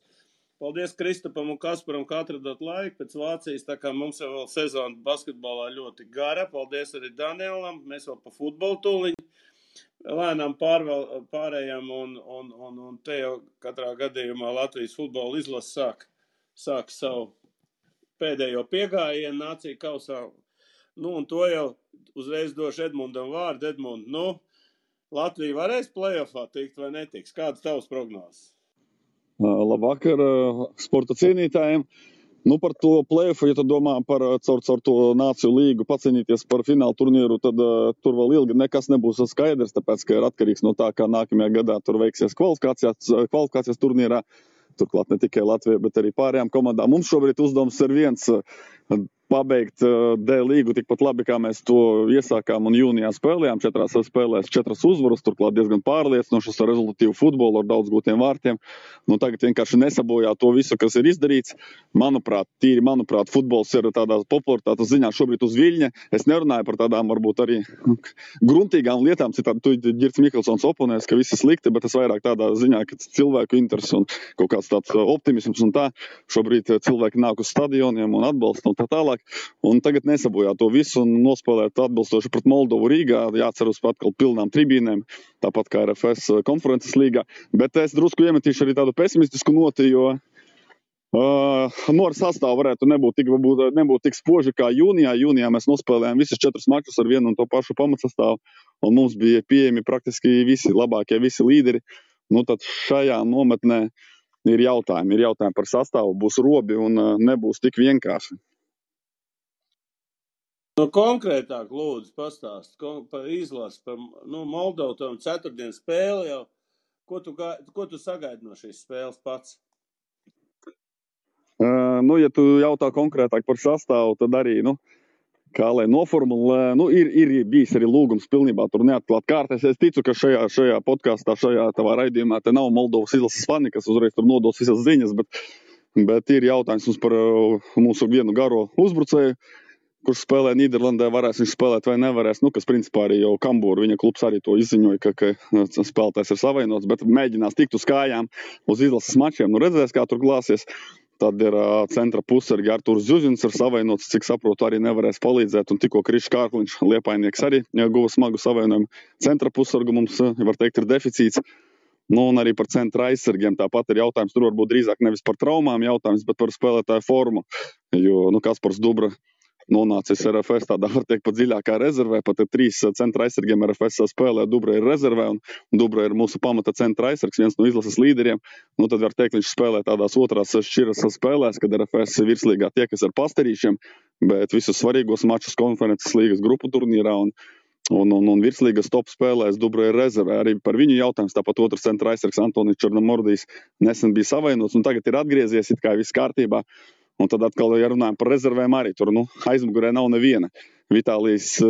Paldies Kristapam un Kasparam, ka atradot laiku pēc Vācijas, tā kā mums jau vēl sezona basketbolā ļoti gara. Paldies arī Danielam, mēs vēl pa futbolu tūliņu lēnām pārējām un te jau katrā gadījumā Latvijas futbola izlase sāk savu pēdējo piegājienu nāciju kausā. Un to jau uzreiz došu Edmundam vārdu. Edmund, Latvija varēs play-offā tikt vai netiks? Kādas tavas prognozes? Labvakar sporta cienītājiem. Par to play-offu, ja tu domā par caur to nāciju līgu pacīnīties par finālu turnīru, tad tur vēl ilgi nekas nebūs skaidrs, tāpēc, ka ir atkarīgs no tā, kā nākamajā gadā tur veiksies kvalifikācijas turnīrā. Turklāt ne tikai Latvija, bet arī pārējām komandām. Mums šobrīd uzdevums ir viens pabeigt D līgu tikpat labi, kā mēs to iesākām un jūnijā spēlējām. 4 spēlēs 4 uzvaras, turklāt diezgan pārliecinošas ar rezultatīvu futbolu, ar daudz gūtiem vārtiem. Tagad vienkārši nesabojā to visu, kas ir izdarīts. Manuprāt, futbols ir tādā popularitātes ziņā šobrīd uz viļņa. Es nerunāju par tādām varbūt arī gruntīgām lietām, citādi tu Girts Mikelsons oponēs, ka viss ir slikti, bet es vairāk tādā ziņā, ka cilvēku interesi un kaut kāds tāds optimisms un tā. Šobrīd cilvēki nāk uz stadioniem un atbalsta un tā tālāk. Un tagad nesabojā to visu un nospēlēt atbilstoši pret Moldovu Rīgā. Jāceras atkal pilnām tribīnēm, tāpat kā RFS konferences līgā. Bet es drusku iemetīšu arī tādu pesimistisku noti, jo ar sastāvu varētu nebūt tik spoži kā jūnijā. Jūnijā mēs nospēlējām visus 4 mačus ar vienu un to pašu pamatsastāvu, un mums bija pieejami praktiski visi labākie, visi līderi. Tad šajā nometnē ir jautājumi par sastāvu, būs robi un nebūs tik vienkārši. Konkrētāk, lūdzu, pastāst par izlasi, par Moldovu tam 4. spēli jau. Ko tu sagaidi no šīs spēles pats? Ja tu jautā konkrētāk par sastāvu, tad arī, kā lai noformulē, ir bijis arī lūgums pilnībā tur neatklāt kārtēs. Es ticu, ka šajā podkastā, šajā tavā raidījumā te nav Moldovas izlases fani, kas uzreiz tur nodos visas ziņas, bet ir jautājums mums par mūsu vienu garo uzbrucēju, kurš spēlē Nīderlandē, varēs viņš spēlēt vai nevarēs, kas principā arī jau Kambūra, viņa klubs arī to izziņoja, ka spēlētājs ir savainots, bet mēģinās tikt uz kājām uz izlases mačiem, redzēs, kā tur glāsies. Tad ir centra pussargi Artūrs Zuzins ir savainots, cik saprotu, arī nevarēs palīdzēt, un tikko Krišs Kārkliņš, Liepainieks, arī guva smagu savainojumu. Centra pussargu mums, var teikt, ir deficīts. Un arī par centra aizsargiem tāpat ir jautājums, tur varbūt drīzāk nevis par traumām jautājums, bet par spēlētāju formu, jo Kaspars Dubra nonācis RFS tādā, var teikt, pat dziļākā rezervē, pat 3 centra aizsargiem RFS spēlē, Dubra ir rezervē, un Dubra ir mūsu pamata centra aizsargs, viens no izlases līderiem. Tad var teikt, viņš spēlē tādās otrās šķiras spēlēs, kad RFS virslīgā tiekas ar pastarīšiem, bet visus svarīgos mačus konferences līgas grupu turnīrā un virslīgas top spēlēs Dubra ir rezervē. Arī par viņu jautājums, tāpat otrs centra aizsargs Antonis Černomordijs nesen bija savainots, un tagad ir atgriezies, it kā viss kārtībā. Un tad atkal, ja runājam par rezervēm, arī tur aizmugurē nav neviena. Vitālijs,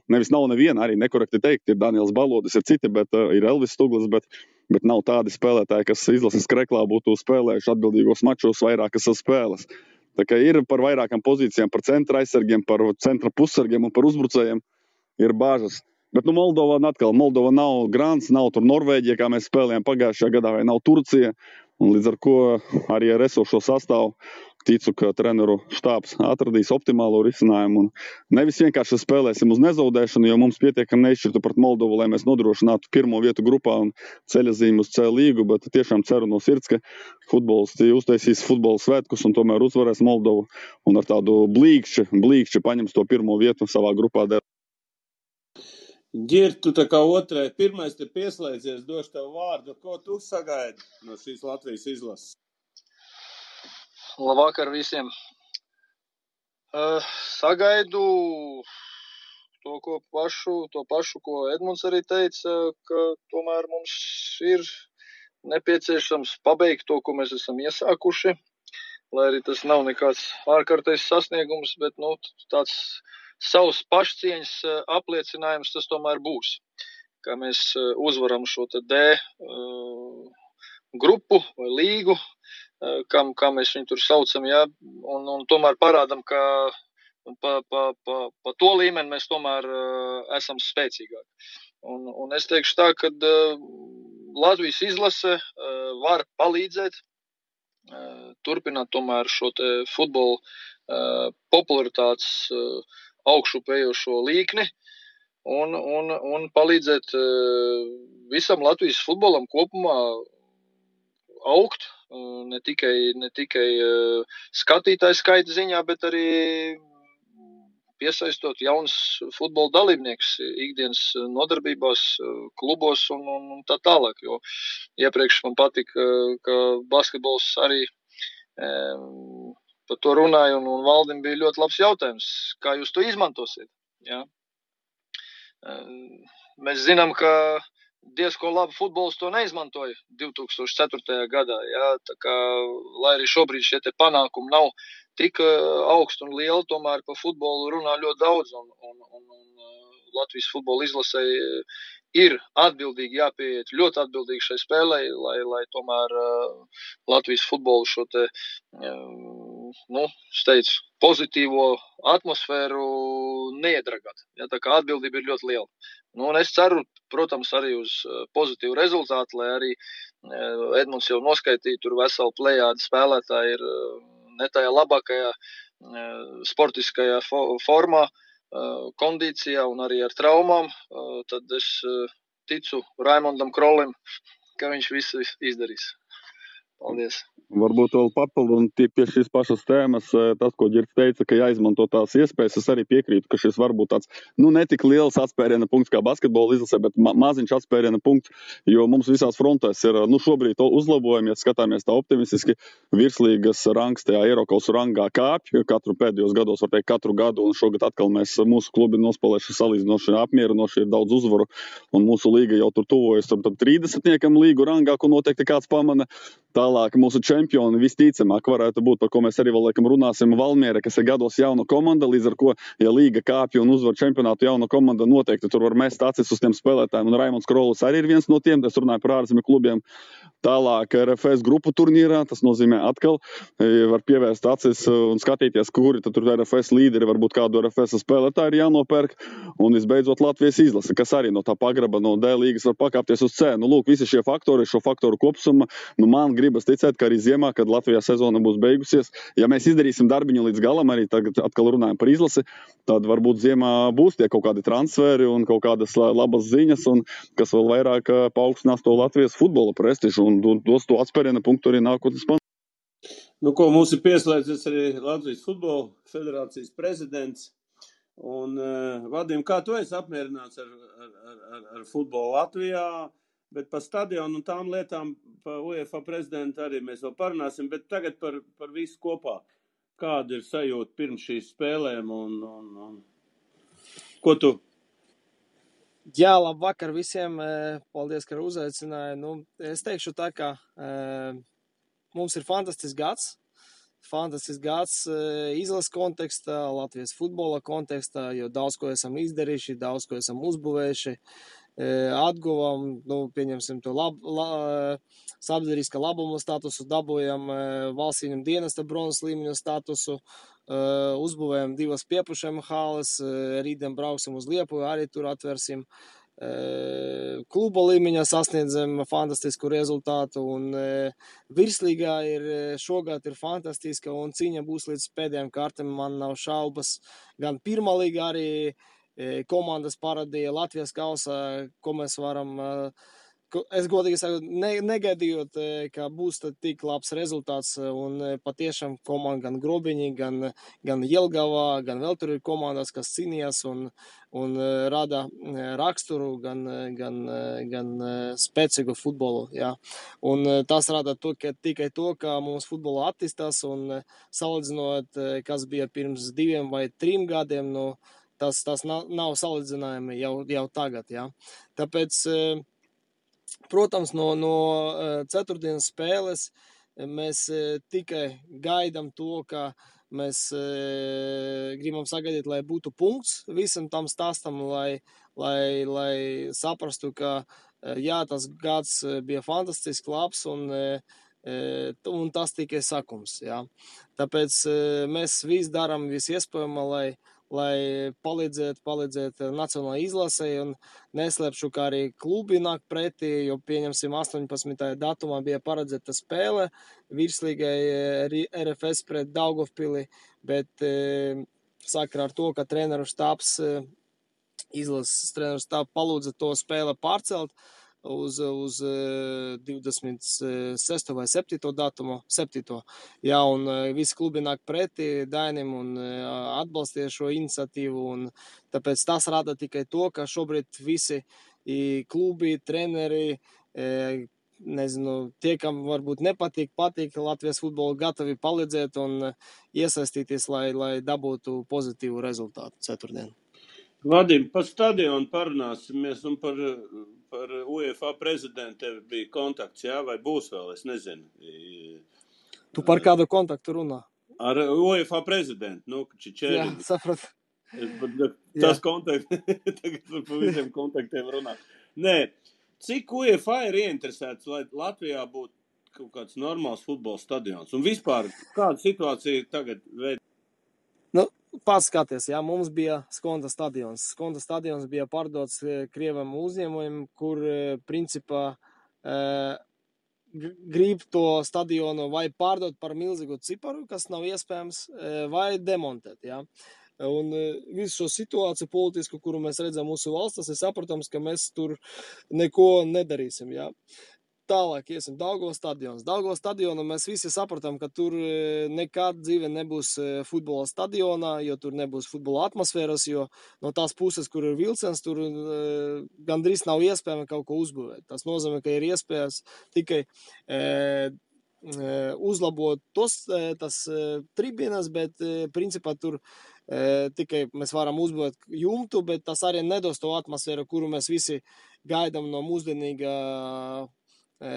nevis nav neviena, arī nekorekti teikt, ir Daniels Balodis, ir citi, bet ir Elvis Stuglis, bet nav tādi spēlētāji, kas izlases kreklā būtu spēlējuši atbildīgos mačos vairākas spēles. Tā kā ir par vairākām pozīcijām, par centra aizsargiem, par centra pussargiem un par uzbrucējiem ir bāžas. Bet Moldova nav Grants, nav tur Norvēģija, kā mēs spēlējām pagājušajā gadā, vai nav Turcija. Un līdz ar ko arī ar esošo sastāvu ticu, ka treneru štābs atradīs optimālo risinājumu un nevis vienkārši spēlēsim uz nezaudēšanu, jo mums pietiekami neizšķirtu pret Moldovu, lai mēs nodrošinātu pirmo vietu grupā un ceļazīmu uz C līgu, bet tiešām ceru no sirds, ka futbolisti uztaisīs futbola svētkus un tomēr uzvarēs Moldovu un ar tādu blīkšķi paņems to pirmo vietu savā grupā. Ģir, tu tā kā otrai, pirmais te pieslēdzies, došu tev vārdu. Ko tu sagaidi no šīs Latvijas izlases? Labvakar visiem. Sagaidu to pašu, ko Edmunds arī teica, ka tomēr mums ir nepieciešams pabeigt to, ko mēs esam iesākuši, lai arī tas nav nekāds ārkārtais sasniegums, bet tāds savs pašcieņas apliecinājums tas tomēr būs, kā mēs uzvaram šo te D grupu vai līgu, kā mēs viņu tur saucam, ja, un tomēr parādam, ka pa to līmeni mēs tomēr esam spēcīgāki. Un es teikšu tā, ka Latvijas izlase var palīdzēt turpināt tomēr šo te futbola popularitātes augšupējošo līkni un palīdzēt visam Latvijas futbolam kopumā augt, ne tikai skatītāju skaita ziņā, bet arī piesaistot jauns futbola dalībnieks ikdienas nodarbībās, klubos un tā tālāk, jo iepriekš man patika, ka basketbols arī par to runāja un Valdim bija ļoti labs jautājums, kā jūs to izmantosiet, jā. Mēs zinām, ka diezko labi futbols to neizmantoja 2004. gadā, jā, tā kā, lai arī šobrīd šie te panākumi nav tik augsti un lieli, tomēr pa futbolu runā ļoti daudz, un Latvijas futbola izlasei ir atbildīgi jāpieiet, ļoti atbildīgi šai spēlei, lai tomēr Latvijas futbolu šo te, steidz, pozitīvo atmosfēru neiedragāt, jā, tā kā atbildība ir ļoti liela. Un es ceru, protams, arī uz pozitīvu rezultātu, lai arī Edmunds jau noskaitīja, tur veselu plejādi spēlētāji ir ne tajā labākajā sportiskajā formā, kondīcijā un arī ar traumām, tad es ticu Raimondam Krolim, ka viņš visu izdarīs. Paldies. Varbūt vēl papildināt pie šīs pašas tēmas, tas, ko Ģirds teica, ka jāizmanto tās iespējas, es arī piekrītu, ka šis var būt tāds, netik liels atspēriena punkts kā basketbola izlasē, bet maziņš atspēriena punkts, jo mums visās frontēs ir, šobrīd uzlabojumi, ja skatāmies tā optimistiski, virslīgas rangs tajā Eirokaus rangā kāpj, katru pēdējos gados, var teikt, katru gadu, un šogad atkal mūsu klubi nospēlējuši salīdzinoši apmierinoši, ir daudz uzvaru, un mūsu līga jau tur tuvojas tam 30-niekam līgu rangā, ko noteikti kāds pamana. Tālāk mūsu čempioni visticamāk varētu būt, par ko mēs arī vēl laikam runāsim, Valmiera, kas ir gados jauna komanda, līdz ar ko, ja līga kāpja un uzvar čempionātu jauna komanda, noteikti tur var mest acis uz tiem spēlētājiem, un Raimonds Krolis arī ir viens no tiem, es runāju par ārzemju klubiem. Tālāk RFS grupu turnīrā, tas nozīmē atkal var pievērst acis un skatīties, kuri tad tur RFS līderi, varbūt kādu RFS spēlētāju ir jānopērk, un visbeidzot Latvijas izlase, kas arī no tā pagraba no D līgas var pakāpties uz C. Lūk, visi šie faktori, šo faktoru kopsumma, man gribas ticēt, ka arī ziemā, kad Latvijā sezona būs beigusies, ja mēs izdarīsim darbiņu līdz galam, arī tagad atkal runājam par izlasi, tad varbūt ziemā būs tie kaut kādi transferi un kaut kādas labas ziņas, un kas vēl vairāk paaugstinās to Latvijas futbola prestižu un dos to atspēriena punktu arī nākotnes panākt. Ko mums ir pieslēdzies arī Latvijas futbola federācijas prezidents. Un, Vadim, kā tu esi apmierināts ar futbolu Latvijā? Bet par stadionu un tām lietām, par UEFA prezidentu arī mēs vēl parunāsim, bet tagad par visu kopā. Kāda ir sajūta pirms šīs spēlēm un ko tu? Jā, labvakar visiem. Paldies, ka uzaicināja. Es teikšu tā, ka mums ir fantastisks gads. Fantastisks gads izlases kontekstā, Latvijas futbola kontekstā, jo daudz ko esam izdarījuši, daudz ko esam uzbūvējuši. Atguvam, pieņemsim to sabiedriskā labuma statusu, dabūjam valsts ieņem dienesta bronzas līmeņa statusu, uzbūvējam 2 piepušiem halas, rītdien brauksim uz Liepuju, arī tur atversim. kluba līmeņā sasniedzam fantastisku rezultātu, un virslīgā šogad ir fantastiska, un cīņa būs līdz pēdējām kārtām, man nav šaubas. Gan pirmā līga arī komandas parādīja Latvijas kausā, ko mēs varam, es godīgi saku, negaidījot, ka būs tik labs rezultāts, un patiešām komanda gan Grobiņi, gan Jelgavā, gan vēl tur ir komandas, kas cīnījās un rada raksturu, gan spēcīgu futbolu, jā. Un tas rada tikai to, ka mums futbolu attīstās, un salīdzinot, kas bija pirms 2 vai 3 gadiem, nu, tas nav salīdzinājumi jau tagad, jā. Tāpēc, protams, no ceturtdienas spēles mēs tikai gaidām to, ka mēs gribam sagaidīt, lai būtu punkts visam tam stāstam, lai saprastu, ka jā, tas gads bija fantastisks, labs, un tas tikai sakums, jā. Tāpēc mēs visu darām visu iespējamo, lai palīdzēt nacionālajai izlasei, un neslēpšu, ka arī klubi nāk pretī, jo pieņemsim 18. datumā bija paredzēta spēle virslīgai RFS pret Daugavpili, bet sakarā ar to, ka treneru štābs, izlases treneru štābs palūdza to spēle pārcelt uz 26. vai 7. datumu, 7. Jā, un visi klubi nāk pretī Dainim un atbalstīja šo iniciatīvu, un tāpēc tas rada tikai to, ka šobrīd visi klubi, treneri, nezinu, tie, kam varbūt patīk Latvijas futbolu, gatavi palīdzēt un iesaistīties, lai dabūtu pozitīvu rezultātu ceturtdien. Vadim, par stadionu parunāsimies, un par UEFA prezidentu tev bija kontakts, jā, vai būs vēl, es nezinu. Tu par kādu kontaktu runā? Ar UEFA prezidentu, nu, Čičēri. Jā, sapratu. Tas kontakts, tagad par visiem kontaktiem runā. Nē, cik UEFA ir ieinteresēts, lai Latvijā būtu kaut kāds normāls futbola stadions? Un vispār, kāda situācija tagad veid? Nu, pats skaties, jā, mums bija Skonda stadions. Skonda stadions bija pārdots Krievam uzņēmumiem, kur, principā, grib to stadionu vai pārdot par milzīgu ciparu, kas nav iespējams, vai demontēt, jā. Un visu šo situāciju politisku, kuru mēs redzam mūsu valstās, ir saprotams, ka mēs tur neko nedarīsim, jā. Tālāk iesim Daugavas stadions. Daugavas stadionu mēs visi sapratam, ka tur nekad dzīve nebūs futbola stadionā, jo tur nebūs futbola atmosfēras, jo no tās puses, kur ir vilciens, tur gandrīz nav iespējami kaut ko uzbūvēt. Tas nozīmē, ka ir iespējas tikai uzlabot tas tribīnas, bet principā tur tikai mēs varam uzbūvēt jumtu, bet tas arī nedos to atmosfēru, kuru mēs visi gaidām no mūsdienīga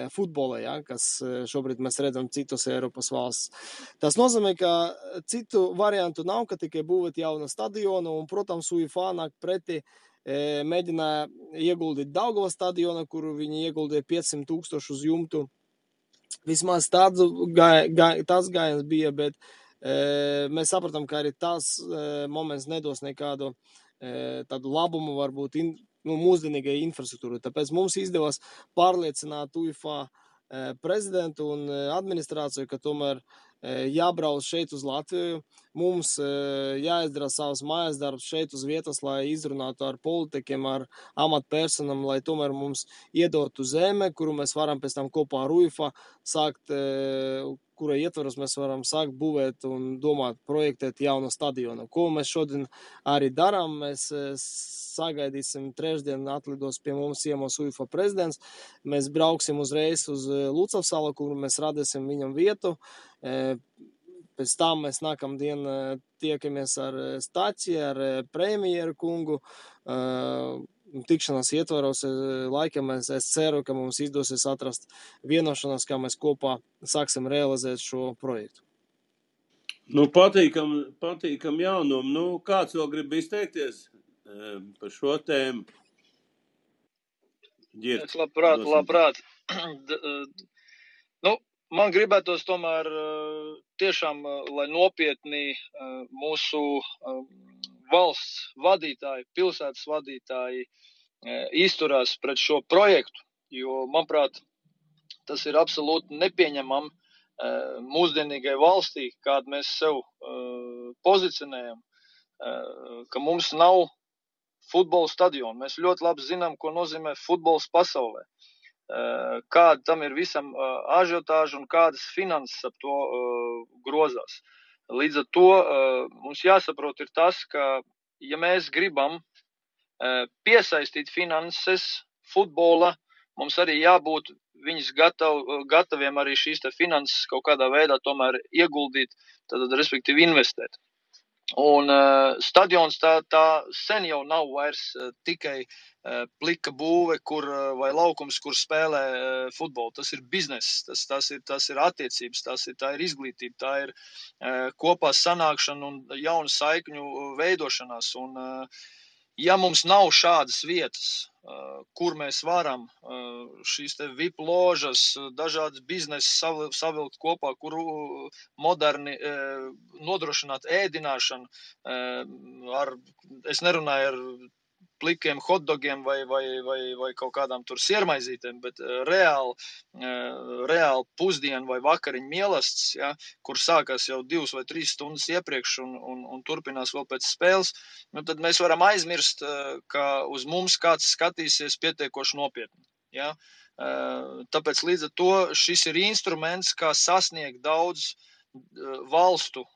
futbola, ja, kas šobrīd mēs redzam citos Eiropas valsts. Tas nozīmē, ka citu variantu nav, ka tikai būvēt jaunu stadionu, un, protams, UEFA nāk pretī, mēģināja ieguldīt Daugavas stadionu, kuru viņi ieguldīja 500,000 uz jumtu. Vismaz tāds gājiens bija, bet mēs sapratam, ka arī tas moments nedos nekādu tādu labumu, varbūt mūsdienīgai infrastruktūrai. Tāpēc mums izdevās pārliecināt UEFA prezidentu un administrāciju, ka tomēr jābrauc šeit uz Latviju. Mums jāizdara savas mājas darbs šeit uz vietas, lai izrunātu ar politikiem, ar amatpersonam, lai tomēr mums iedotu zeme, kuru mēs varam pēc tam kopā ar UEFA sākt, kura ietvaros mēs varam sākt būvēt un domāt, projektēt jaunu stadionu. Ko mēs šodien arī darām, mēs sagaidīsim trešdien atlidos pie mums ciemos UEFA prezidents, mēs brauksim uzreiz uz Lucavsalu, kur mēs radīsim viņam vietu, pēc tam mēs nākamdien tiekamies ar Staķi, ar premjeru kungu, tikšanās ietvaros laikam es ceru, ka mums izdosies atrast vienošanos, kā mēs kopā sāksim realizēt šo projektu. Nu, patīkam jaunumu. Nu, kāds vēl grib izteikties par šo tēmu? Es labprāt. Nu, man gribētos tomēr tiešām, lai nopietni mūsu valsts vadītāji, pilsētas vadītāji izturās pret šo projektu, jo, manuprāt, tas ir absolūti nepieņemam mūsdienīgai valstī, kādu mēs sev pozicionējam, ka mums nav futbola stadionu. Mēs ļoti labi zinām, ko nozīmē futbols pasaulē. Kāda tam ir visam ažiotāža un kādas finanses ap to grozās. Līdz ar to mums jāsaprot ir tas, ka ja mēs gribam piesaistīt finanses futbola, mums arī jābūt viņas gataviem arī šīs te finanses kaut kādā veidā tomēr ieguldīt, tad respektīvi investēt. Un stadions tā sen jau nav vairs tikai plika būve, vai laukums, kur spēlē futbolu. Tas ir bizness, tas ir attiecības, tā ir izglītība, tā ir kopā sanākšana un jaunu saikņu veidošanās. Un ja mums nav šādas vietas, kur mēs varam šīs te VIP ložas, dažādas biznesas savilkt kopā, kur moderni nodrošināt ēdināšanu, es nerunāju ar plikiem hotdogiem vai kaut kādām tur siermaizītēm, bet reāli pusdienu vai vakariņu mielasts, ja, kur sākās jau 2 vai 3 stundas iepriekš un turpinās vēl pēc spēles, tad mēs varam aizmirst, ka uz mums kāds skatīsies pietiekoši nopietni. Ja. Tāpēc līdz ar to šis ir instruments, kā sasniegt daudz valstu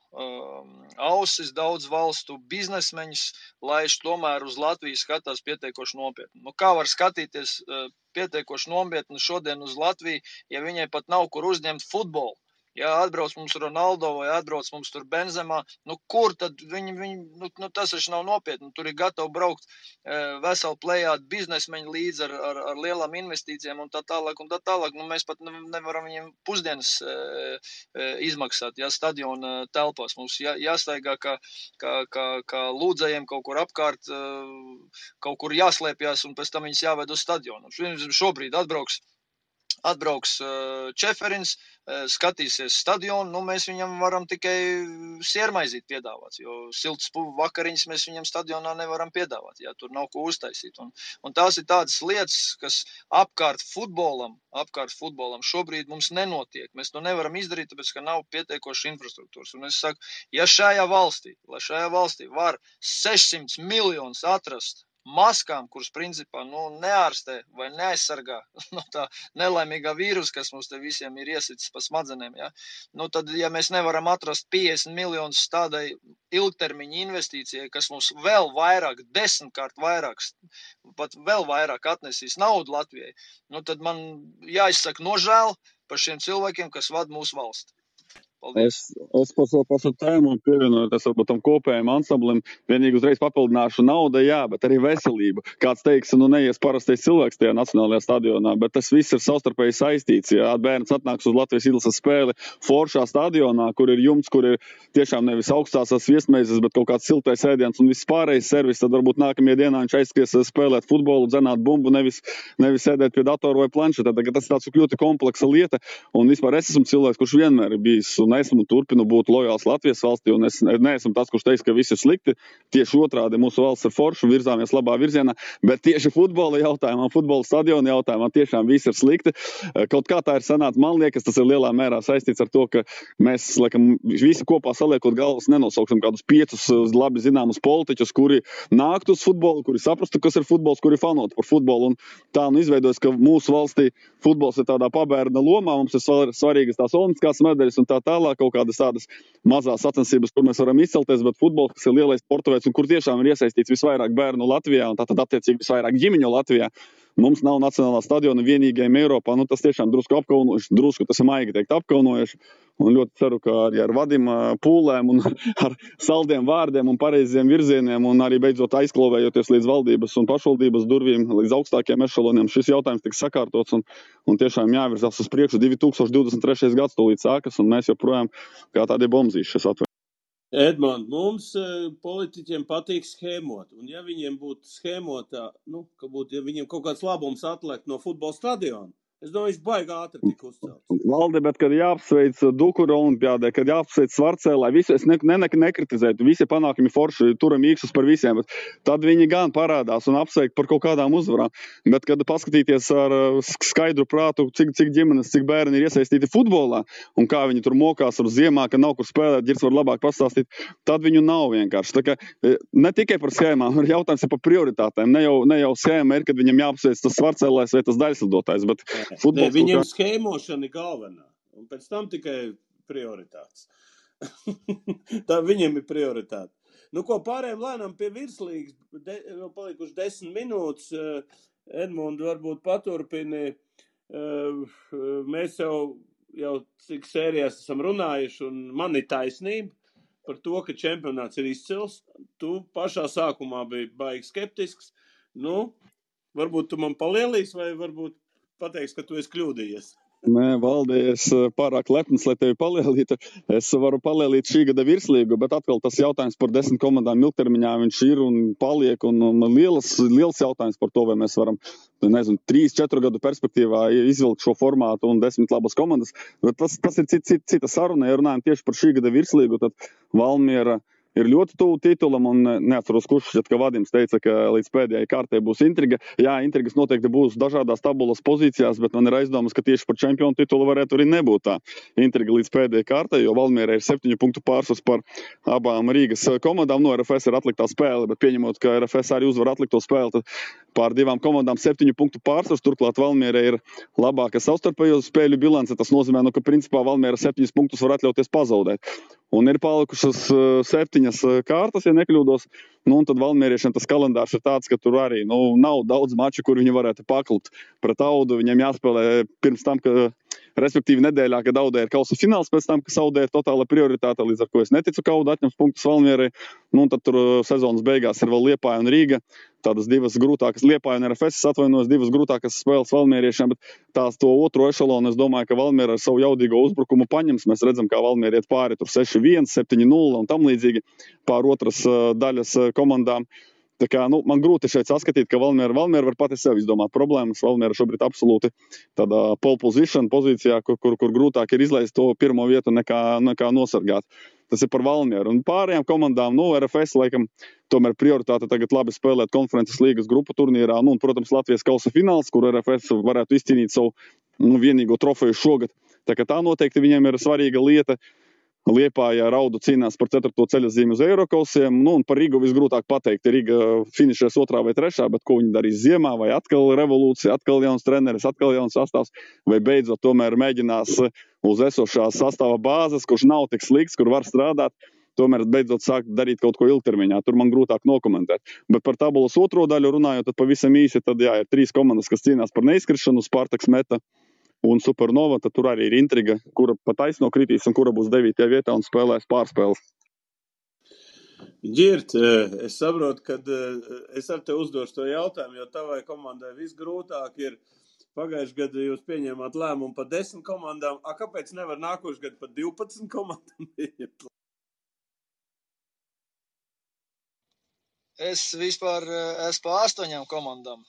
ausis, daudz valstu biznesmeņus, lai tomēr uz Latviju skatās pietiekoši nopietni. Kā var skatīties pietiekoši nopietni šodien uz Latviju, ja viņai pat nav kur uzņemt futbolu? Ja atbrauc mums Ronaldo vai atbrauc mums tur Benzemā, kur tad viņi tas taču nav nopietni. Tur ir gatavi braukt veselu plejādu biznesmeņu līdz ar lielām investīcijām un tā tālāk. Mēs pat nevaram viņiem pusdienas izmaksāt, ja stadiona telpās. Mums jāstaigā kā lūdzējiem kaut kur apkārt, kaut kur jāslēpjas un pēc tam viņus jāved uz stadionu. Šobrīd atbrauks Čeferins, skatīsies stadionu, mēs viņam varam tikai siermaizīt piedāvāt, jo siltas vakariņas mēs viņam stadionā nevaram piedāvāt, ja tur nav ko uztaisīt. Un tās ir tādas lietas, kas apkārt futbolam šobrīd mums nenotiek. Mēs to nevaram izdarīt, tāpēc, ka nav pietiekoši infrastruktūras. Un es saku, ja šajā valstī var 600 miljonus atrast maskām, kuras principā neārstē vai neaizsargā no tā nelaimīgā vīrusa, kas mums te visiem ir iesicis pa smadzenēm, ja? Tad, ja mēs nevaram atrast 50 miljonus tādai ilgtermiņa investīcijai, kas mums vēl vairāk, 10-kārt vairāk, pat vēl vairāk atnesīs naudu Latvijai, tad man jāizsaka nožēl par šiem cilvēkiem, kas vada mūsu valsti. Es par šo tēmu pievienojoties varbūt tam kopējiem ansamblim, vienīgi uzreiz papildināšu nauda, jā, bet arī veselība. Kāds teiks, neies parastais cilvēks tajā nacionālajā stadionā, bet tas viss ir savstarpēji saistīts. Ja bērns atnāks uz Latvijas izlases spēli foršā stadionā, kur ir jumts, kur ir tiešām nevis augstās viesmeizes, bet kaut kāds siltais ēdiens un viss pārējais servis, tad varbūt nākamajā dienā viņš aizskries spēlēt futbolu, dzenāt bumbu, nevis sēdēt pie datora vai planšeta. Tas ir tāds ļoti kompleksa lieta, un vispār es esmu cilvēks, kurš vienmēr ir bijis un esmu turpinu būt lojāls Latvijas valstī, un es neesmu tas, kurš teiks, ka viss ir slikti. Tieši otrādi, mūsu valsts ir forša, virzāmies labā virzienā, bet tieši futbola jautājumā, futbola stadiona jautājumā tiešām viss ir slikti. Kaut kā tā ir sanāca, man liekas, tas ir lielā mērā saistīts ar to, ka mēs, laikam, visi kopā saliekot galvas nenosauksim kādus 5 labi zināmus politiķus, kuri nāktu uz futbolu, kuri saprastu, kas ir futbols, kuri fanot par futbolu, un tā izveidojas, ka mūsu valstī futbols ir tādā pabērna lomā, mums ir svarīgas tās olimpiskās medaļas un tā tālāk, kaut kādas tādas mazās sacensības, kur mēs varam izcelties, bet futbols, kas ir lielais sporta veids un kur tiešām ir iesaistīts visvairāk bērnu Latvijā un tātad attiecīgi visvairāk ģimeņu Latvijā, mums nav nacionālā stadiona vienīgajiem Eiropā. Tas tiešām drusku apkaunojuši, tas ir maigi teikt apkaunojuši. Un ļoti ceru, ka arī ar vadima pūlēm un ar saldiem vārdiem un pareiziem virzieniem un arī beidzot aizklovējoties līdz valdības un pašvaldības durvīm, līdz augstākiem ešaloniem, šis jautājums tiks sakārtots un tiešām jāvirzās uz priekšu. 2023. gads tūlīt sākas un mēs joprojām kā tādi bombzīši šis atvēr. Edmond, mums politiķiem patīk schēmot, un ja viņiem būtu schēmotā, ja viņiem kaut kāds labums atliek no futbola stadiona, Es domāju, viņš baigi ātri tika uzcelts. Valdi, bet kad jāapsveic Dukura olimpiādē, kad jāapsveic Svarcēlā, visu es nekritizētu, visi panākumi forši, turam īkšus par visiem, bet tad viņi gan parādās un apsveik par kaut kādām uzvarām. Bet, kad paskatīties ar skaidru prātu, cik ģimenes, cik bērni ir iesaistīti futbolā, un kā viņi tur mokās ar ziemā, ka nav kur spēlēt, Ģirds var labāk pastāstīt, tad viņu nav vienkārši. Tā kā ne tikai par schēmām, jautājums ir par prioritātēm. Ne jau schēma ir, kad viņam jāapsveic tas Svarcēlājs vai tas daļslidotājs, bet futbols... Viņiem schēmošana ir galvenā, un pēc tam tikai prioritātes. Tā viņiem ir prioritāte. Nu, ko pārējiem lēnām pie virslīgas, vēl palikuši 10 minūtes, Edmundi varbūt paturpini. Mēs jau cik sērijās esam runājuši, un man ir taisnība par to, ka čempionāts ir izcils. Tu pašā sākumā biji baigi skeptisks. Nu, varbūt tu man palielīs, vai varbūt pateiks, ka tu esi kļūdījies. Nē, Valdi, es pārāk lepns, lai tevi palielītu. Es varu palielīt šī gada virslīgu, bet atkal tas jautājums par 10 komandām ilgtermiņā viņš ir un paliek. Un liels jautājums par to, vai mēs varam, 3-4 gadu perspektīvā izvilkt šo formātu un 10 labas komandas. Bet tas ir cita saruna. Ja runājam tieši par šī gada virslīgu, tad Valmiera ir ļoti tuvu titulam, un neatceros, kurš šķiet, ka Vadims teica, ka līdz pēdējai kārtē būs intriga. Jā, intrigas noteikti būs dažādās tabulas pozīcijās, bet man ir aizdomas, ka tieši par čempionu titulu varētu arī nebūt tā intriga līdz pēdējai kārtē, jo Valmierai ir 7 punktu pārsvars par abām Rīgas komandām. No RFS ir atliktā spēle, bet pieņemot, ka RFS arī uzvar atlikto spēli, tad pār divām komandām 7 punktu pārsvars. Turklāt Valmierai ir labāka savstarpējo spēļu bilance. Tas nozīmē, ka principā Valmiera 7 punktus var atļauties pazaudēt. Un ir palikušas 7 kārtas, ja nekļūdos. Un tad valmieriešiem tas kalendārs ir tāds, ka tur arī nav daudz maču, kur viņi varētu paklut. Pret Audu viņiem jāspēlē pirms tam, respektīvi nedēļā, kad Audē ir kausa fināls, pēc tam, ka Audē ir totāla prioritāte, līdz ar ko es neticu, ka Auda atņems punktus Valmierai. Un tad tur sezonas beigās ir vēl Liepāja un Rīga. Tādas divas grūtākas, Liepāja un RFS, atvainojos, divas grūtākas spēles valmieriešiem, bet tās to otro ešalonu, es domāju, ka Valmiera ar savu jaudīgo uzbrukumu paņems. Mēs redzam, kā Valmiera iet pāri tur 6-1, 7-0 un tam līdzīgi pār otras daļas komandām. Tā kā, man grūti šeit saskatīt, ka Valmiera var pati sev izdomāt problēmas. Valmiera šobrīd absolūti tādā pole position pozīcijā, kur grūtāk ir izlaist to pirmo vietu nekā nosargāt. Tas ir par Valmieru. Un pārējām komandām, RFS laikam tomēr prioritāte tagad labi spēlēt konferences līgas grupu turnīrā. Un, protams, Latvijas kausa fināls, kur RFS varētu izcīnīt savu vienīgo trofeju šogad. Tā kā tā noteikti viņiem ir svarīga lieta. Liepājā ar Audu cīnās par 4. ceļazīmi uz Eirokausiem. Un par Rigu visgrūtāk pateikt. Riga finišēs 2. vai 3. bet ko viņi darīs ziemā, vai atkal revolūcija, atkal jauns treneris, atkal jauns sastāvs, vai beidzot tomēr mēģinās uz esošās sastāva bāzes, kurš nav tik slikts, kur var strādāt, tomēr beidzot sākt darīt kaut ko ilgtermiņā. Tur man grūtāk nokomentēt. Bet par tabulas otro daļu runājot, tad pavisam īsi, tad jā, ir 3 komandas, kas cīnās par neizkrišanu, Spartaks, Meta un Supernova, tad tur arī ir intriga, kura pa taisno kritīs un kura būs 9. vietā un spēlēs pārspēles. Ģirt, es saprotu, ka es ar te uzdošu to jautājumu, jo tavai komandai visgrūtāk ir. Pagājuši gadu jūs pieņēmāt lēmumu par 10 komandām. Kāpēc nevar nākošu gadu par 12 komandām? Es vispār esmu par 8 komandām.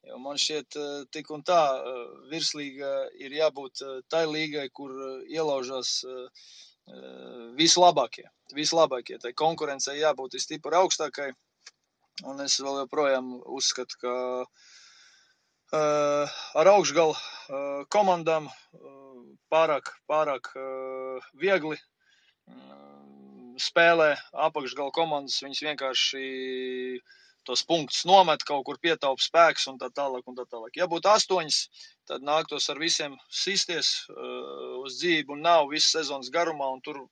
Jo man šķiet, tik un tā virslīga ir jābūt tai līgai, kur ielaužās vislabākie. Tai konkurencei jābūt stipri augstākai. Un es vēl joprojām uzskatu, ka ar augšgalu komandām pārāk viegli spēlē apakšgalu komandas. Viņas vienkārši tos punktus nomet, kaut kur pietaupa spēks un tā tālāk. Ja būtu 8, tad nāktos ar visiem sisties uz dzīvi un nav visas sezonas garumā, un tur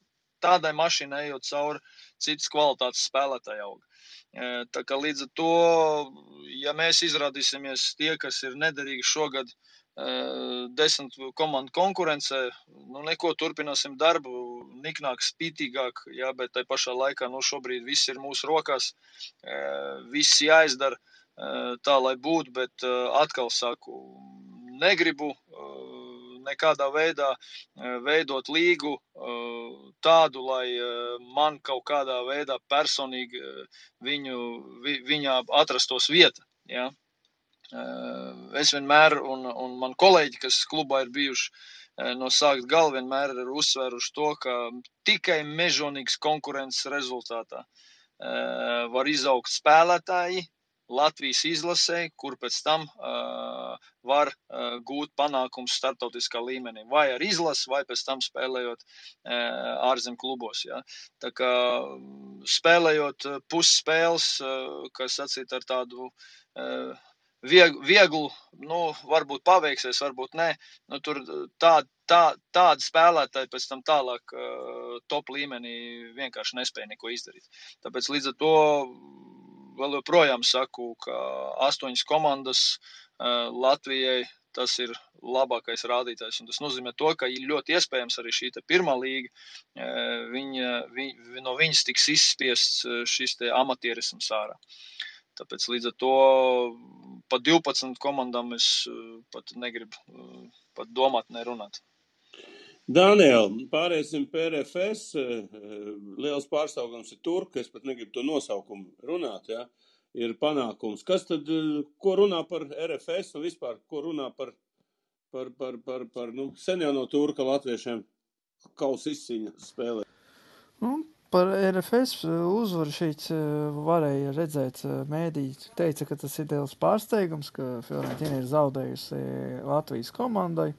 tādai mašīnai ejot cauri citas kvalitātes spēlētāji aug. Tā kā līdz ar to, ja mēs izrādīsimies tie, kas ir nederīgi šogad 10 komandu konkurencē, neko turpināsim darbu, niknāk, spītīgāk, jā, bet tai pašā laikā, šobrīd viss ir mūsu rokās, viss jāizdara tā, lai būtu, bet atkal saku, negribu nekādā veidā veidot līgu tādu, lai man kaut kādā veidā personīgi viņā atrastos vieta, jā. es vienmēr, un man kolēģi, kas klubā ir bijuši no sākt gala, vienmēr ir uzsvēruši to, ka tikai mežonīgas konkurences rezultātā var izaugt spēlētāji Latvijas izlasē, kur pēc tam var gūt panākums starptautiskā līmenī, vai ar izlasi, vai pēc tam spēlējot ārzem klubos. Ja. Tā kā spēlējot pusspēles, kas sacīt ar tādu vieglu, varbūt paveiksies, varbūt nē, tur tādi spēlētāji pēc tam tālāk top līmenī vienkārši nespēja neko izdarīt. Tāpēc līdz ar to vēl joprojām saku, ka 8 komandas Latvijai tas ir labākais rādītājs. Un tas nozīmē to, ka ir ļoti iespējams arī šī pirmā līga, no viņas tiks izspiests šis amatierisms ārā. Tāpēc līdz ar to pa 12 komandām es pat negribu pat domāt, nerunāt. Daniel, pārēsim pie RFS. Liels pārstāvums ir Turka, es pat negribu to nosaukumu runāt, ja? Ir panākums. Kas tad, ko runā par RFS un vispār, ko runā par sen jau no Turka latviešiem kausa izcīņa spēlē? Par RFS uzvaru šeit varēja redzēt, mēdīji teica, ka tas ir liels pārsteigums, ka Fiorentina ir zaudējusi Latvijas komandai.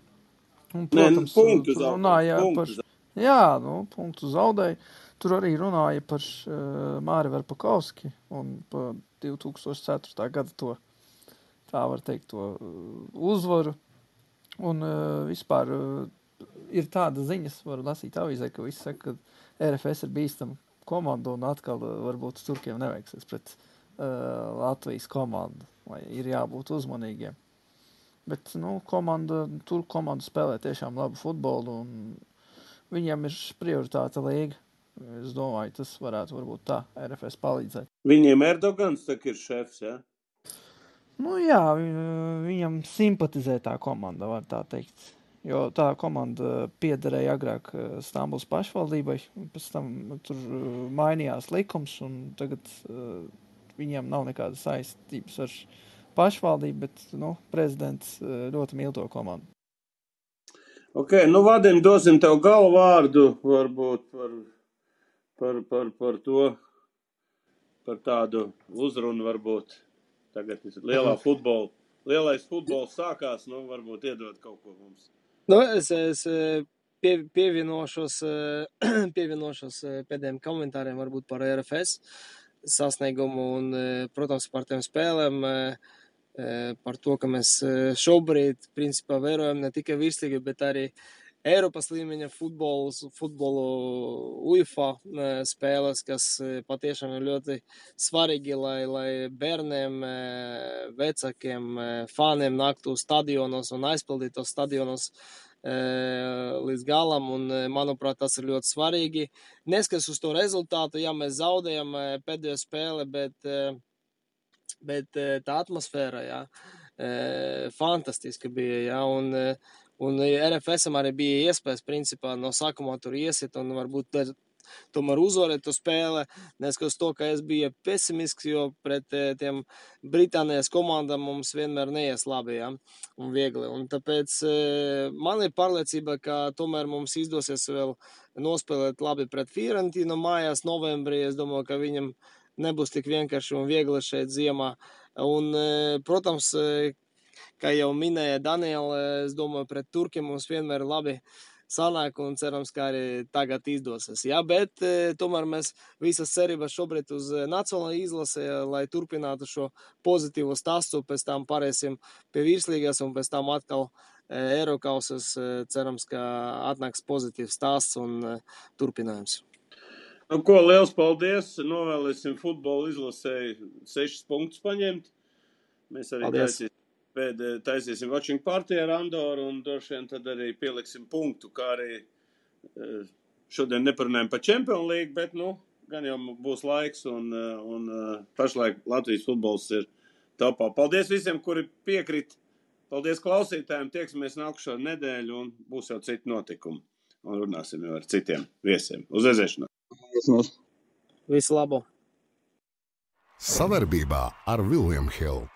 Un, protams, punktu runāja par... Jā, punktu zaudēja. Tur arī runāja par Māri Verpakovski un par 2004. gada to, tā var teikt, to uzvaru. Un vispār ir tāda ziņas, varu lasīt avīzē, ka visi saka, ka RFS ir bīstama komanda un atkal varbūt Turkiem neveiksies pret Latvijas komandu, vai ir jābūt uzmanīgiem. Bet, Turku komanda spēlē tiešām labu futbolu un viņiem ir prioritāte līga. Es domāju, tas varētu varbūt tā RFS palīdzēt. Viņiem Erdogans tak ir šefs, ja? Jā, viņam simpatizē tā komanda, var tā teikt. Jo tā komanda piederēja agrāk Stambulas pašvaldībai, pēc tam tur mainījās likums un tagad viņiem nav nekādas saistības ar pašvaldību, bet, prezidents ļoti mīl to komandu. Ok, Vadim, dosim tev galvārdu varbūt par to, par tādu uzrunu varbūt. Tagad lielais futbols sākās, varbūt iedod kaut ko mums. Es pievienošos pēdējiem komentāriem varbūt par RFS sasniegumu un, protams, par tiem spēlēm, par to, ka mēs šobrīd, principā, vērojam ne tikai virslīgu, bet arī Eiropas līmeņa futbolu UEFA spēles, kas patiešām ir ļoti svarīgi, lai bērniem, vecākiem, fāniem nāktu stadionos un aizpildītu tos stadionos līdz galam, un, manuprāt, tas ir ļoti svarīgi. Neskatās uz to rezultātu, ja mēs zaudējam pēdējo spēli, bet tā atmosfēra, fantastiska bija, un RFSam arī bija iespējas, principā, no sākumā tur iesit un varbūt tomēr uzvarēt to spēle, neskatās to, ka es biju pesimisks, jo pret tiem Britānijas komandām mums vienmēr neies labi, un viegli. Un tāpēc man ir pārliecība, ka tomēr mums izdosies vēl nospēlēt labi pret Fiorentinu mājās novembrī. Es domāju, ka viņam nebūs tik vienkārši un viegli šeit ziemā. Un, protams, kā jau minēja Daniela, es domāju, pret Turkiem mums vienmēr labi sanāk un cerams, ka arī tagad izdosies. Bet tomēr mēs visas cerības šobrīd uz nacionālo izlasi, lai turpinātu šo pozitīvo stāstu, pēc tam pārēsim pie virslīgas un pēc tam atkal Eirokausas. Cerams, ka atnāks pozitīvs stāsts un turpinājums. Liels paldies! Novēlēsim futbola izlasēji 6 punktus paņemt. Mēs arī taisīsim watching party ar Andoru un droši vien tad arī pieliksim punktu, kā arī šodien neparunājam par Champions League, bet, gan jau būs laiks un pašlaik Latvijas futbols ir topā. Paldies visiem, kuri piekrit. Paldies klausītājiem. Tieksimies nākušo nedēļu un būs jau citi notikumi. Un runāsim jau ar citiem viesiem. Uz redzēšanos! Visu labu! Savarbībā ar William Hill.